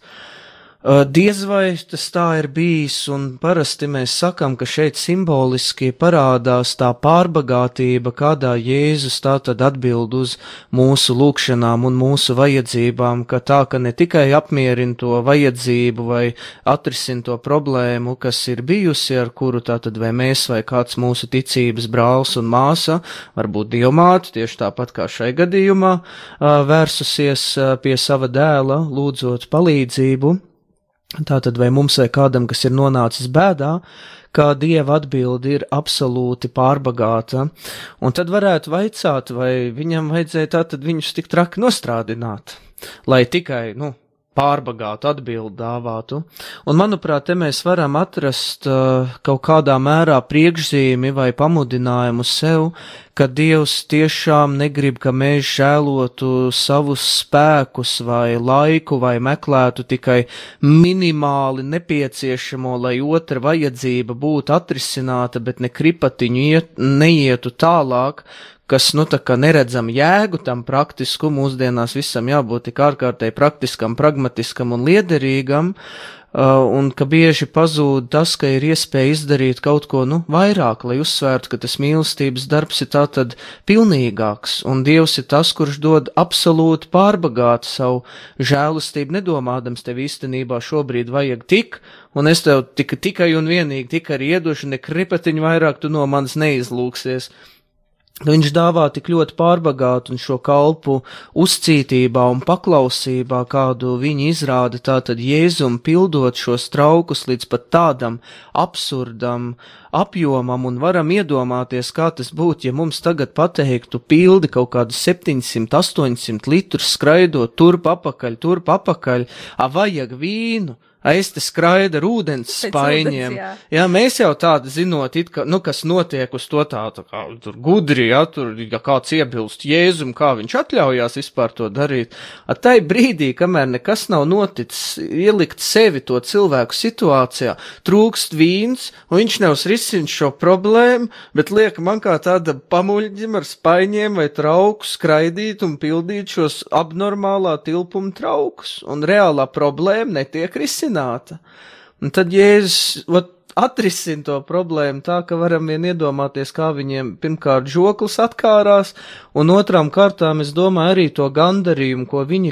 S3: Diez vai tas tā ir bijis, un parasti mēs sakam, ka šeit simboliski parādās tā pārbagātība, kādā Jēzus tātad atbild uz mūsu lūkšanām un mūsu vajadzībām, ka tā, ka ne tikai apmierina to vajadzību vai atrisina to problēmu, kas ir bijusi, ar kuru tātad vai mēs vai kāds mūsu ticības brālis un māsa, varbūt dievmāte, tieši tāpat kā šai gadījumā, vērsusies pie sava dēla, lūdzot palīdzību, Tātad vai mums vai kādam, kas ir nonācis bēdā, kā Dieva atbildi ir absolūti pārbagāta, un tad varētu vaicāt, vai viņam vajadzēja tātad viņus tik traki nostrādināt, lai tikai, pārbagātu atbildi dāvātu. Un, manuprāt, te mēs varam atrast kaut kādā mērā priekšzīmi vai pamudinājumu sev, ka Dievs tiešām negrib, ka mēs žēlotu savus spēkus vai laiku vai meklētu tikai minimāli nepieciešamo, lai otra vajadzība būtu atrisināta, bet ne kripatiņu neietu tālāk, kas, tā kā neredzam jēgu tam praktisku, mūsdienās visam jābūt tik ārkārtēji praktiskam, pragmatiskam un liederīgam, un ka bieži pazūd tas, ka ir iespēja izdarīt kaut ko, vairāk, lai uzsvērtu, ka tas mīlestības darbs ir tātad pilnīgāks, un Dievs ir tas, kurš dod absolūti pārbagātu savu žēlastību, nedomādams tev īstenībā šobrīd vajag tik, un es tev tikai un vienīgi tik arī iedošu, ne kripatiņu vairāk tu no manis neizlūksies. Viņš dāvā tik ļoti pārbagātu un šo kalpu uzcītībā un paklausībā, kādu viņi izrāda tātad Jēzum pildot šos traukus līdz pat tādam absurdam apjomam, un varam iedomāties, kā tas būtu, ja mums tagad pateiktu pildi kaut kādu 700-800 litrus skraidot turp apakaļ, vajag vīnu. Es te skraida ar ūdens spaiņiem. Jā, mēs jau tādu zinot, kas notiek uz to tā kā tur gudri, ja kāds iebilst Jēzum, kā viņš atļaujās vispār to darīt. Tai brīdī, kamēr nekas nav noticis, ielikt sevi to cilvēku situācijā, trūkst vīns, un viņš nevis risina šo problēmu, bet liek man kā tāda pamuļģim ar spaiņiem vai trauku skraidīt un pildīt šos abnormālā tilpuma traukus, un reālā problēma netiek risināt. Un tad Jēzus atrisina to problēmu tā, ka varam vien iedomāties, kā viņiem pirmkārt žoklis atkārās, un otrām kārtām, es domāju, arī to gandarījumu, ko viņi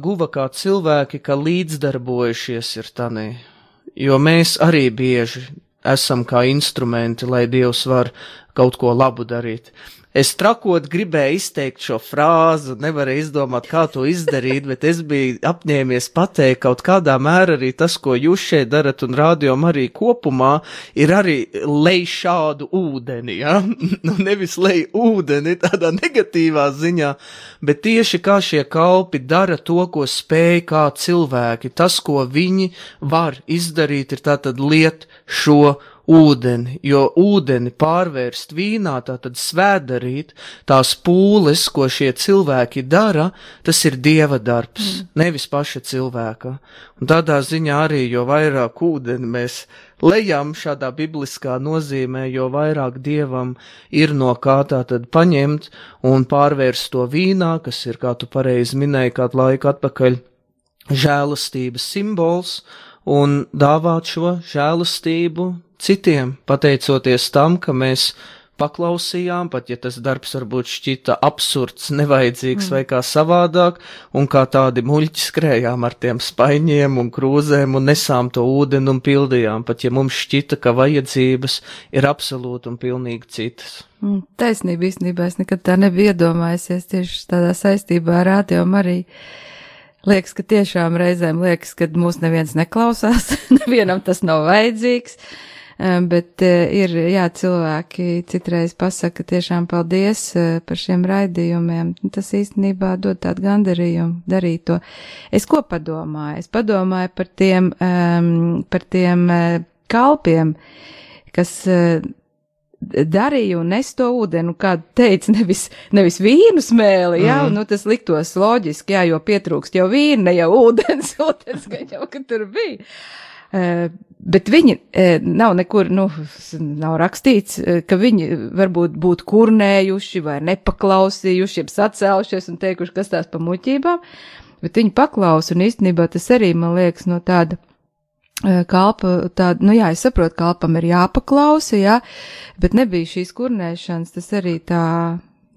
S3: guva kā cilvēki, ka līdzdarbojušies ir tanī. Jo mēs arī bieži esam kā instrumenti, lai Dievs var kaut ko labu darīt. Es trakot gribēju izteikt šo frāzu, nevarēju izdomāt, kā to izdarīt, bet es biju apņēmies pateikt kaut kādā mērā arī tas, ko jūs šeit darat un rādījām arī kopumā, ir arī lej šādu ūdeni, ja? Nevis lej ūdeni tādā negatīvā ziņā, bet tieši kā šie kalpi dara to, ko spēj kā cilvēki. Tas, ko viņi var izdarīt, ir tātad liet šo ūdeni, jo ūdeni pārvērst vīnā, tātad svētdarīt, tās pūles, ko šie cilvēki dara, tas ir Dieva darbs, nevis paša cilvēka. Un tādā ziņā arī, jo vairāk ūdeni mēs lejam šādā bibliskā nozīmē, jo vairāk Dievam ir no kā tātad paņemt un pārvērst to vīnā, kas ir, kā tu pareizi minēji, kādu laiku atpakaļ, žēlastības simbols, un dāvāt šo žēlastību citiem, pateicoties tam, ka mēs paklausījām, pat ja tas darbs varbūt šķita absurds, nevajadzīgs vai kā savādāk, un kā tādi muļķi skrējām ar tiem spaiņiem un krūzēm un nesām to ūdeni un pildījām, pat ja mums šķita, ka vajadzības ir absolūti un pilnīgi citas.
S2: Taisnība īstenībā es nekad tā nebija iedomājusies tieši tādā saistībā ar Radio Mariju. Liekas, ka tiešām reizēm liekas, ka mūs neviens neklausās, nevienam tas nav vajadzīgs. Bet ir, cilvēki citreiz pasaka tiešām paldies par šiem raidījumiem. Tas īstenībā dod tādu gandarījumu darīt to. Es ko padomāju? Es padomāju par tiem kalpiem, kas darīja un nes to ūdeni, kādu teica, nevis vīnu smēli, tas liktos loģiski, jo pietrūkst jau vīna, ne jau ūdens gan jau, ka tur bija. Bet viņi nav nekur, nav rakstīts, ka viņi varbūt būtu kurnējuši vai nepaklausījuši, jeb sacēlušies un teikuši, kas tās pa muļķībām, bet viņi paklausa, un īstenībā tas arī, man liekas, no tāda kalpa, es saprotu, kalpam ir jāpaklausa, bet nebija šīs kurnēšanas, tas arī tā.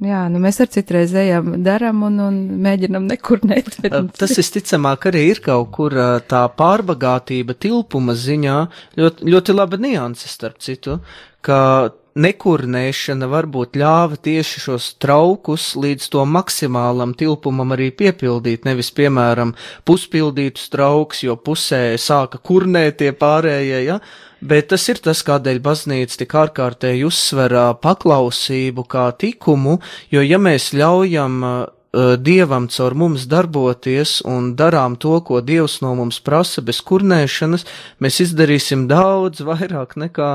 S2: Mēs ar citreiz ejam, daram un mēģinam nekurnēt.
S3: Tas visticamāk arī ir kaut kur tā pārbagātība tilpuma ziņā, ļoti laba nianse starp citu, ka nekurnēšana varbūt ļāva tieši šos traukus līdz to maksimālam tilpumam arī piepildīt, nevis, piemēram, puspildītus trauks, jo pusē sāka kurnēt tie pārējie, ja? Bet tas ir tas, kādēļ baznīca tik ārkārtēji uzsver paklausību kā tikumu, jo ja mēs ļaujam Dievam caur mums darboties un darām to, ko Dievs no mums prasa bez kurnēšanas, mēs izdarīsim daudz vairāk nekā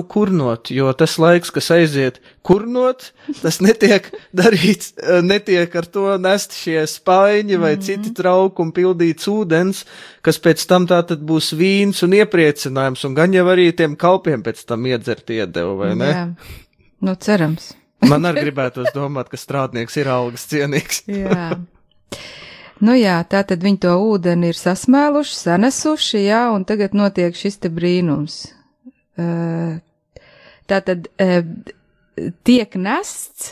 S3: kurnot, jo tas laiks, kas aiziet kurnot, tas netiek darīts, netiek ar to nest šie spaiņi vai citi traukumi pildīts ūdens, kas pēc tam tātad būs vīns un iepriecinājums, un gan jau arī tiem kalpiem pēc tam iedzert iedevu, vai ne?
S2: Jā, cerams.
S3: Man arī gribētos domāt, ka strādnieks ir algas cienīgs.
S2: Jā. Tātad viņi to ūdeni ir sasmēluši, sanesuši, un tagad notiek šis te brīnums. Tātad tiek nests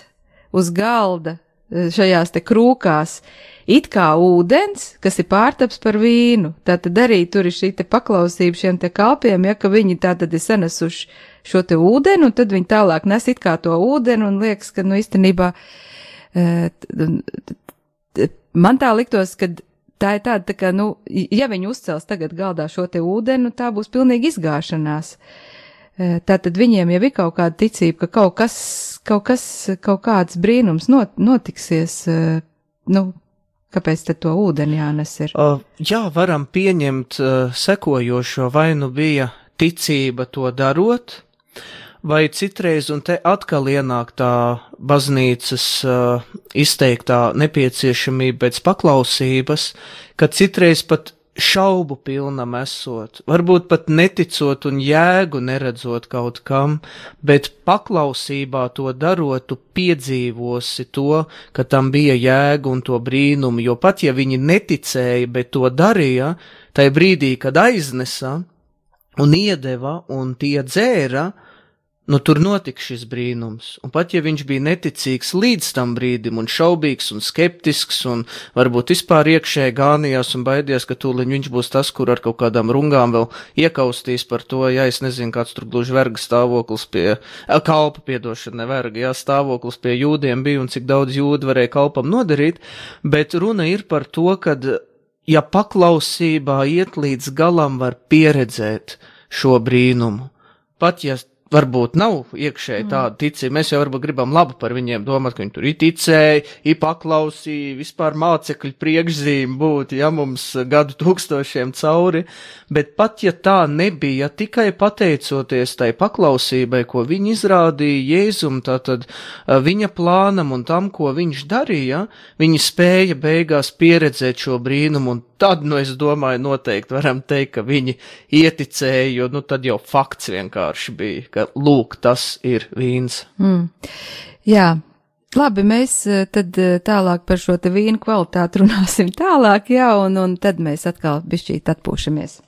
S2: uz galda šajās te krūkās it kā ūdens, kas ir pārtaps par vīnu. Tātad arī tur ir šī te paklausība šiem te kalpiem, ka viņi tātad ir sanesuši šo te ūdeni, un tad viņi tālāk nes it kā to ūdeni, un liekas, ka, īstenībā, man tā liktos, ka tā ir tāda, tā kā, ja viņi uzcels tagad galdā šo te ūdeni, tā būs pilnīgi izgāšanās. Tātad viņiem jau ir kaut kāda ticība, ka kaut kāds brīnums notiksies, kāpēc tad to ūdeni jānes ir?
S3: Jā, varam pieņemt sekojošo, vai bija ticība to darot, vai citreiz, un te atkal ienāk tā baznīcas izteiktā nepieciešamība pēc paklausības, ka citreiz pat šaubu pilnam esot, varbūt pat neticot un jēgu neredzot kaut kam, bet paklausībā to darot, tu piedzīvosi to, ka tam bija jēga un to brīnumu, jo pat ja viņi neticēja, bet to darīja, tai brīdī, kad aiznesa un iedeva un tie dzēra, tur notika šis brīnums, un pat ja viņš bija neticīgs līdz tam brīdim, un šaubīgs, un skeptisks, un varbūt vispār iekšēji gānījās un baidījās, ka tūliņ viņš būs tas, kur ar kaut kādām rungām vēl iekaustīs par to, es nezinu, kāds tur gluži verga stāvoklis stāvoklis pie jūdiem bija, un cik daudz jūdu varēja kalpam nodarīt, bet runa ir par to, kad, ja paklausībā iet līdz galam, var pieredzēt šo brīnumu, pat ja varbūt nav iekšēji tāda ticība, mēs jau varbūt gribam labu par viņiem domāt, ka viņi tur ticēja, paklausīja, vispār mācekļu priekšzīme būt, mums gadu tūkstošiem cauri, bet pat ja tā nebija, tikai pateicoties tai paklausībai, ko viņi izrādīja Jēzum, tātad viņa plānam un tam, ko viņš darīja, viņi spēja beigās pieredzēt šo brīnumu, un tad, es domāju, noteikti varam teikt, ka viņi ieticēja, jo, tad jau fakts vienkārši bija, ka, lūk, tas ir vīns.
S2: Jā, labi, mēs tad tālāk par šo te vīnu kvalitāti runāsim tālāk, un tad mēs atkal bišķīt atpūšamies.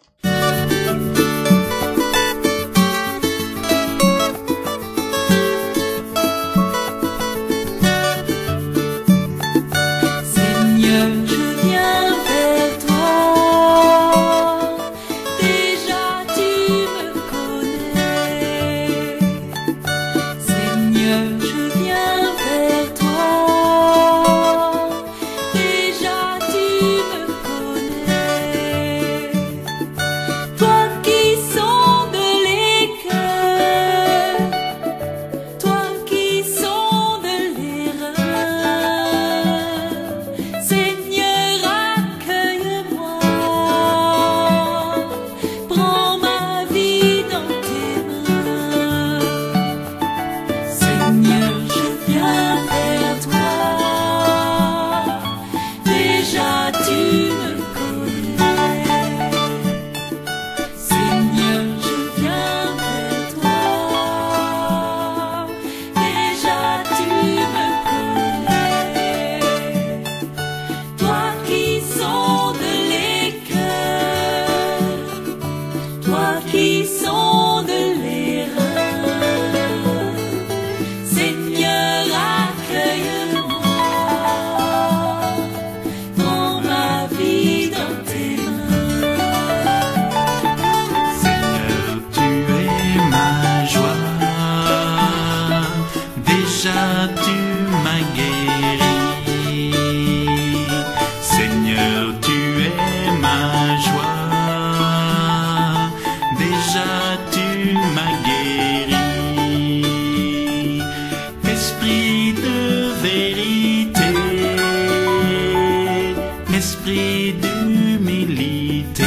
S7: l'esprit d'humilité.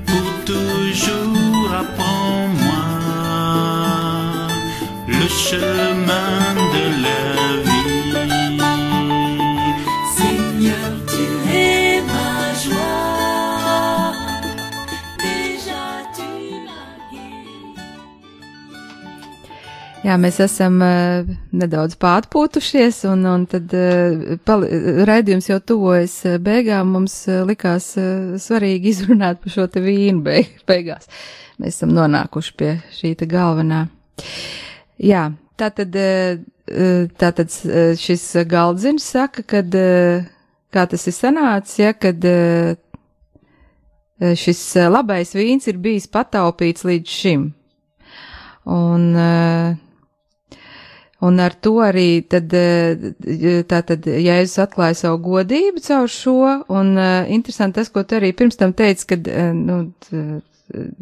S7: Pour toujours apprends-moi le chemin de la vie.
S5: Seigneur, tu es ma joie, déjà tu m'as guéri.
S2: Jā, mēs esam nedaudz pārpūtušies, un tad raidījums jau tuvojas beigām. Mums likās svarīgi izrunāt par šo te vīnu beigās. Mēs esam nonākuši pie šī te galvenā. Jā, tātad šis galdziņš saka, kad, kā tas ir sanācis, ja, kad šis labais vīns ir bijis pataupīts līdz šim. Un ar to arī tātad Jēzus atklāja savu godību caur šo, un interesanti tas, ko tu arī pirms tam teici, kad,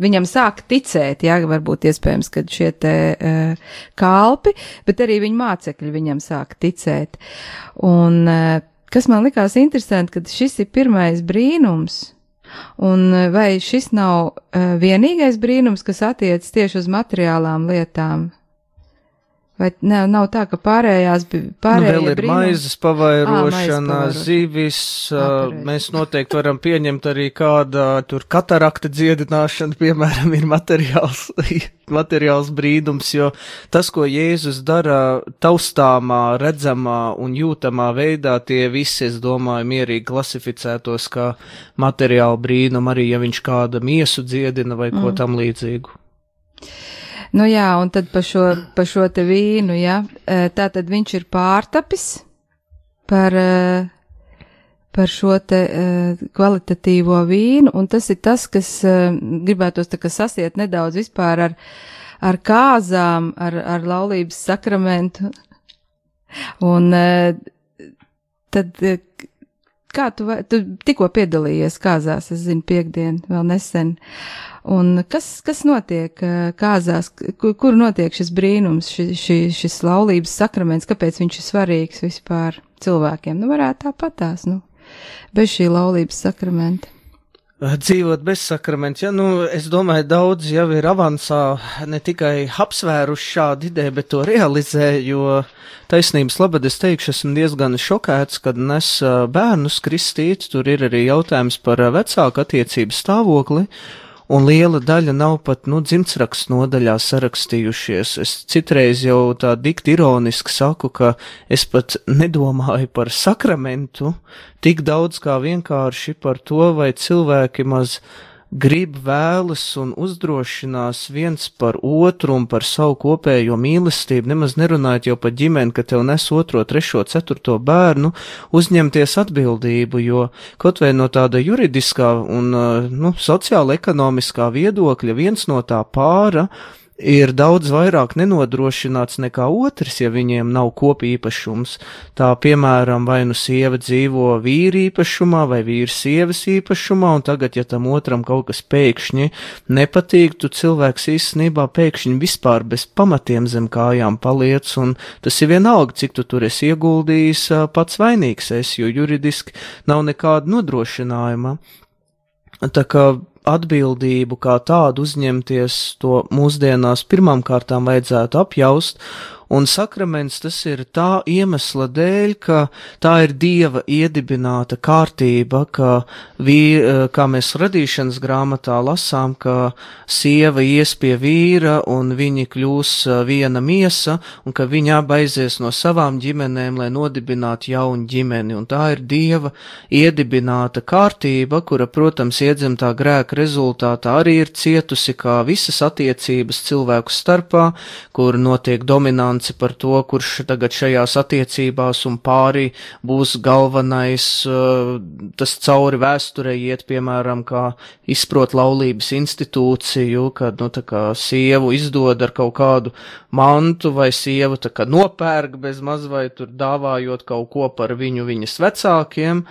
S2: viņam sāka ticēt, jā, varbūt iespējams, kad šie te kalpi, bet arī viņa mācekļi viņam sāka ticēt. Un kas man likās interesanti, kad šis ir pirmais brīnums, un vai šis nav vienīgais brīnums, kas attiec tieši uz materiālām lietām? Vai nav tā, ka pārējie
S3: vēl ir
S2: brīnumi?
S3: maizes pavairošana, zivis, mēs noteikti varam pieņemt arī kāda tur katarakta dziedināšana, piemēram, ir materiāls brīdums, jo tas, ko Jēzus dara taustāmā, redzamā un jūtamā veidā, tie visi, es domāju, mierīgi klasificētos kā materiāli brīnumi, arī ja viņš kāda miesu dziedina vai ko tam līdzīgu.
S2: Nu jā, un tad par šo te vīnu, jā, tā tad viņš ir pārtapis par šo te kvalitatīvo vīnu, un tas ir tas, kas gribētos tā kā sasiet nedaudz vispār ar kāzām, ar laulības sakramentu, un tad, kā tu tikko piedalījies kāzās, es zinu, piekdien, vēl nesen, un kas notiek kāzās, kur notiek šis brīnums, šis laulības sakraments, kāpēc viņš ir svarīgs vispār cilvēkiem? Nu, varētu tāpatās, bez šī laulības sakramenta.
S3: Dzīvot bez sakramenta, ja, es domāju, daudz jau ir avansā ne tikai apsvēruši šādu ideju, bet to realizē, jo taisnības labad es teikšu, esmu diezgan šokēts, kad nes bērnus kristīt, tur ir arī jautājums par vecāku attiecību stāvokli, un liela daļa nav pat, dzimtsrakstu nodaļā sarakstījušies. Es citreiz jau tā dikti ironiski saku, ka es pat nedomāju par sakramentu tik daudz kā vienkārši par to, vai cilvēki maz grib, vēlas un uzdrošinās viens par otru un par savu kopējo mīlestību, nemaz nerunājot jau par ģimeni, ka tev nes 2., 3., 4. bērnu, uzņemties atbildību, jo kaut vai no tāda juridiskā un, sociāla ekonomiskā viedokļa viens no tā pāra ir daudz vairāk nenodrošināts nekā otrs, ja viņiem nav kopīpašums. Tā, piemēram, vai sieva dzīvo vīri īpašumā vai vīrs sievas īpašumā, un tagad, ja tam otram kaut kas pēkšņi nepatīk, tu cilvēks īstenībā pēkšņi vispār bez pamatiem zem kājām paliec, un tas ir vienalga, cik tu tur esi ieguldījis, pats vainīgs esi, jo juridiski nav nekāda nodrošinājuma. Tā kā atbildību kā tādu uzņemties, to mūsdienās pirmām kārtām vajadzētu apjaust, un sakraments tas ir tā iemesla dēļ, ka tā ir Dieva iedibināta kārtība, kā mēs radīšanas grāmatā lasām, ka sieva ies pie vīra un viņi kļūs viena miesa, un ka viņi abi aizies no savām ģimenēm, lai nodibinātu jaunu ģimeni, un tā ir Dieva iedibināta kārtība, kura, protams, iedzimtā grēka rezultātā arī ir cietusi kā visas attiecības cilvēku starpā, kur notiek dominants par to, kurš tagad šajās attiecībās un pārī būs galvenais, tas cauri vēsturei iet, piemēram, kā izprot laulības institūciju, kad, tā kā sievu izdod ar kaut kādu mantu, vai sievu tā kā nopērk bez maz vai tur dāvājot kaut ko par viņas vecākiem.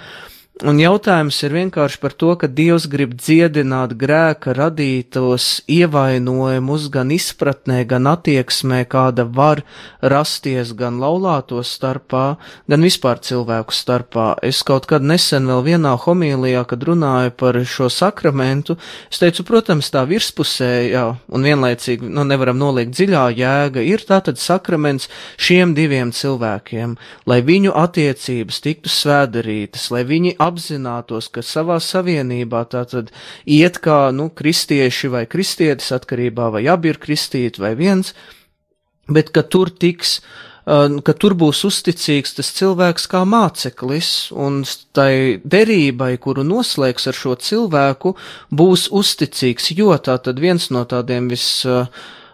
S3: Un jautājums ir vienkārši par to, ka Dievs grib dziedināt grēka radītos ievainojumus gan izpratnē, gan attieksmē, kāda var rasties gan laulāto starpā, gan vispār cilvēku starpā. Es kaut kad nesen vēl vienā homīlijā, kad runāju par šo sakramentu, es teicu, protams, tā virspusējā un vienlaicīgi, nevaram noliegt dziļā jēga, ir tātad sakraments šiem diviem cilvēkiem, lai viņu attiecības tiktu svēdarītas, lai viņi apzinātos, ka savā savienībā tātad iet kā, kristieši vai kristietis atkarībā, vai abi ir kristīti vai viens, bet ka tur būs uzticīgs tas cilvēks kā māceklis, un tai derībai, kuru noslēgs ar šo cilvēku, būs uzticīgs, jo tātad viens no tādiem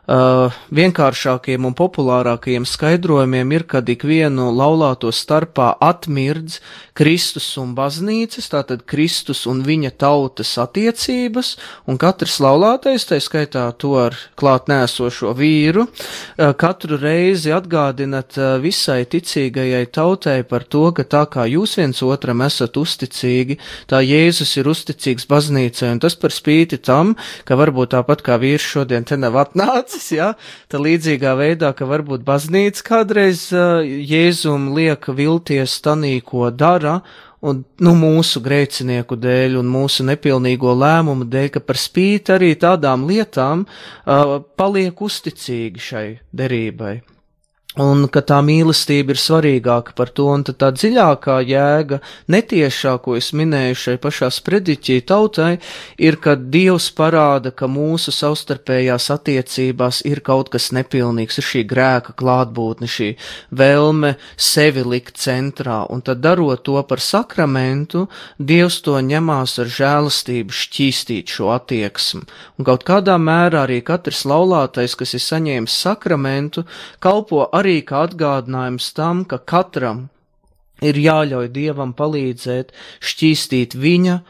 S3: vienkāršākiem un populārākajiem skaidrojumiem ir, kad ikvienu laulāto starpā atmirdz Kristus un baznīcas, tātad Kristus un viņa tautas attiecības, un katrs laulātais, tai skaitā to ar klāt nēsošo vīru, katru reizi atgādinat visai ticīgajai tautai par to, ka tā kā jūs viens otram esat uzticīgi, tā Jēzus ir uzticīgs baznīcai, un tas par spīti tam, ka varbūt tāpat kā vīrs šodien te nav atnācis, tā līdzīgā veidā, ka varbūt baznīca kādreiz Jēzum liek vilties tanī, ko dara, un, mūsu grēcinieku dēļ un mūsu nepilnīgo lēmumu dēļ, ka par spīti arī tādām lietām paliek uzticīgi šai derībai. Un ka tā mīlestība ir svarīgāka par to, un tad tā dziļākā jēga, netiešā, ko es minēju šai pašā sprediķī tautai, ir, ka Dievs parāda, ka mūsu savstarpējās attiecībās ir kaut kas nepilnīgs, ir šī grēka klātbūtne, šī vēlme sevi likt centrā, un tad darot to par sakramentu, Dievs to ņemās ar žēlastību šķīstīt šo attieksmi. Un kaut kādā mērā arī katrs laulātais, kas ir saņēmis sakramentu, kalpo arī kā atgādinājums tam, ka katram ir jāļauj Dievam palīdzēt šķīstīt viņa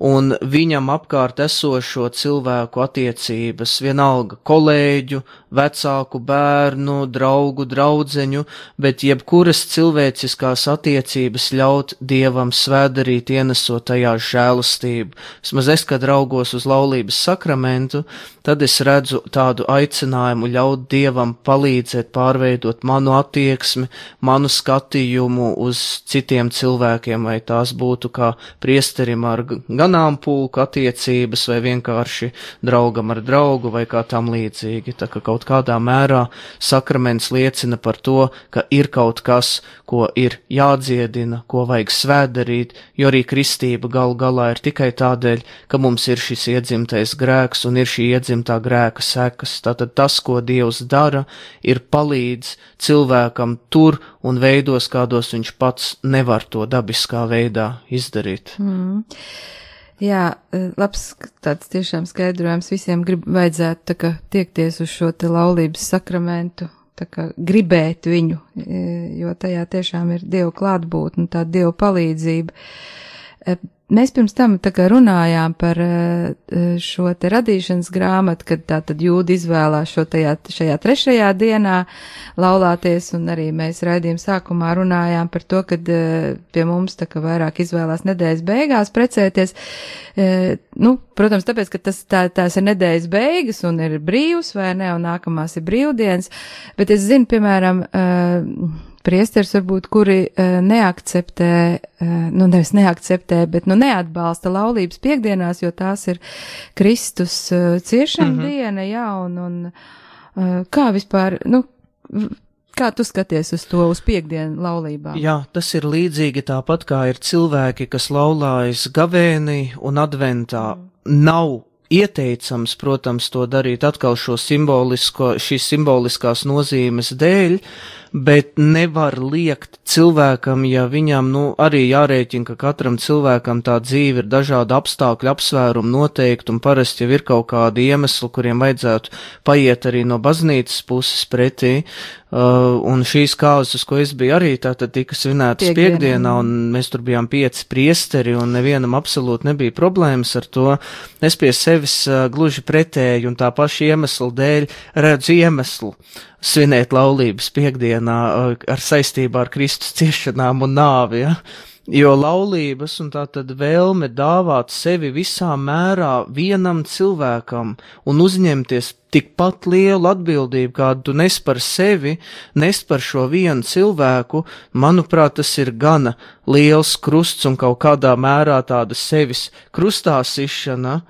S3: un viņam apkārt esošo cilvēku attiecības, vienalga kolēģu, vecāku bērnu, draugu, draudzeņu, bet jebkuras cilvēciskās attiecības ļaut Dievam svētdarīt, ienesot tajā žēlastību. Vismaz es, kad raugos uz laulības sakramentu, tad es redzu tādu aicinājumu ļaut Dievam palīdzēt pārveidot manu attieksmi, manu skatījumu uz citiem cilvēkiem, vai tās būtu kā priesterim ar ganāmpulku attiecības, vai vienkārši draugam ar draugu, vai kā tam līdzīgi. Tā kā kaut kādā mērā sakraments liecina par to, ka ir kaut kas, ko ir jādziedina, ko vajag svētdarīt, jo arī kristība gal galā ir tikai tādēļ, ka mums ir šis iedzimtais grēks un ir šī iedzimtā grēka sekas. Tātad tas, ko Dievs dara, ir palīdz cilvēkam tur un veidos, kādos viņš pats nevar to dabiskā veidā izdarīt.
S2: Jā, labs tāds tiešām skaidrojums visiem vajadzētu tā kā tiekties uz šo te laulības sakramentu, tā kā gribēt viņu, jo tajā tiešām ir Dieva klātbūtne, tā Dieva palīdzība. Mēs pirms tam tā kā runājām par šo te radīšanas grāmatu, kad tā tad jūdi izvēlās šajā 3. dienā laulāties, un arī mēs raidījuma sākumā runājām par to, kad pie mums tā kā vairāk izvēlās nedēļas beigās precēties. Protams, tāpēc, ka tās ir nedēļas beigas un ir brīvs vai ne, un nākamās ir brīvdienas, bet es zinu, piemēram, priesteris varbūt, kuri neakceptē, nevis neakceptē, bet neatbalsta laulības piekdienās, jo tās ir Kristus ciešana diena, jā, un kā vispār, kā tu skaties uz to, uz piekdienu laulībām?
S3: Jā, tas ir līdzīgi tāpat, kā ir cilvēki, kas laulājas gavēnī un adventā. Nav ieteicams, protams, to darīt atkal šīs simboliskās nozīmes dēļ, bet nevar liekt cilvēkam, ja viņam, arī jārēķina, ka katram cilvēkam tā dzīve ir dažāda apstākļu, apsvērumu noteikti, un parasti jau ir kaut kādi iemesli, kuriem vajadzētu paiet arī no baznīcas puses pretī, un šīs kāzas, ko es biju arī, tātad tika svinētas piekdienā, un mēs tur bijām 5 priesteri, un nevienam absolūti nebija problēmas ar to. Es pie sevis gluži pretēji, un tā paša iemesla dēļ redzu iemeslu svinēt laulības piekdienā ar saistībā ar Kristus ciešanām un nāvi, ja? Jo laulības un tā tad vēlme dāvāt sevi visā mērā vienam cilvēkam un uzņemties tikpat lielu atbildību, kādu tu nes par sevi, nes par šo vienu cilvēku, manuprāt, tas ir gana liels krusts un kaut kādā mērā tāda sevis krustā sišana,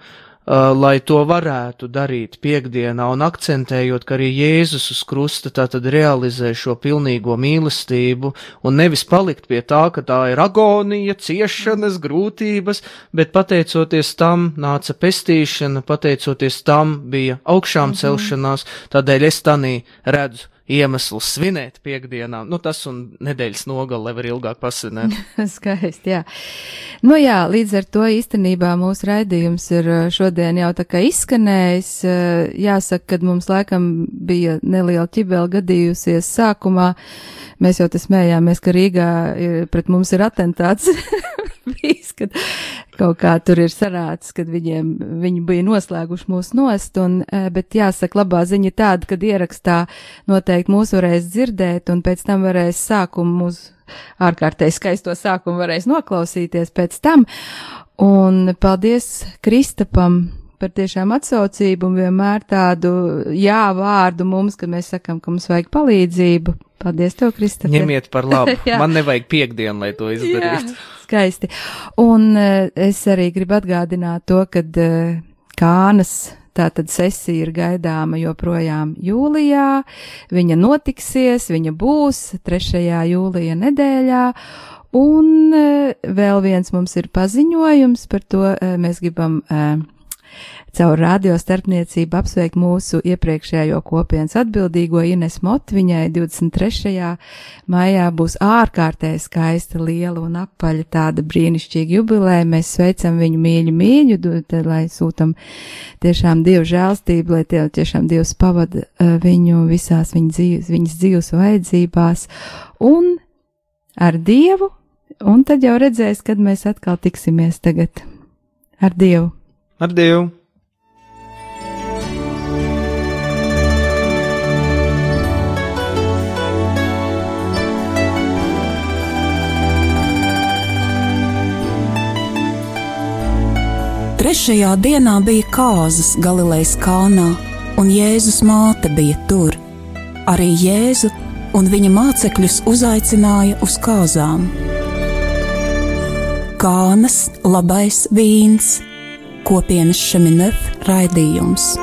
S3: lai to varētu darīt piekdienā un akcentējot, ka arī Jēzus uz krusta tātad realizē šo pilnīgo mīlestību un nevis palikt pie tā, ka tā ir agonija, ciešanas, grūtības, bet pateicoties tam nāca pestīšana, pateicoties tam bija augšām celšanās, tādēļ es tanī redzu iemesls svinēt piekdienām, tas un nedēļas nogali, lai var ilgāk pasvinēt.
S2: Skaisti, jā. Jā, līdz ar to īstenībā mūsu raidījums ir šodien jau tā kā izskanējis. Jāsaka, kad mums laikam bija neliela ķibela gadījusies sākumā, mēs jau te smējāmies, ka Rīgā pret mums ir atentāts bijis, kad kaut kā tur ir sarāds, kad viņi bija noslēguši mūs nost, bet jāsaka, labā ziņa tāda, kad ierakstā noteikti mūs varēs dzirdēt, un pēc tam varēs mūsu ārkārtēji skaisto sākumu varēs noklausīties pēc tam, un paldies Kristapam par tiešām atsaucību un vienmēr tādu jā vārdu mums, kad mēs sakam, ka mums vajag palīdzību. Paldies tev, Kristap.
S3: Ņemiet par labu. Man nevajag piekdienu, lai to izdarītu.
S2: Jā, skaisti. Un es arī gribu atgādināt to, kad Kānas tātad sesija ir gaidāma joprojām jūlijā. Viņa notiksies, viņa būs 3. jūlija nedēļā. Un vēl viens mums ir paziņojums par to, mēs gribam caur radio starpniecību apsveikt mūsu iepriekšējo kopienas atbildīgo Ines Mot. Viņai 23. maijā būs ārkārtēji skaista, liela un apaļa tāda brīnišķīga jubileja. Mēs sveicam viņu mīļu, lai sūtam tiešām Dievu žēlstību, lai tiešām Dievs pavada viņu visās viņas dzīves vajadzībās un ar Dievu, un tad jau redzēs, kad mēs atkal tiksimies tagad ar Dievu.
S3: Ar Dievu!
S1: Trešajā dienā bija kāzas Galilejas kalnā, un Jēzus māte bija tur. Arī Jēzu un viņa mācekļus uzaicināja uz kāzām. Kānas labais vīns, kopienas Šeminef raidījums.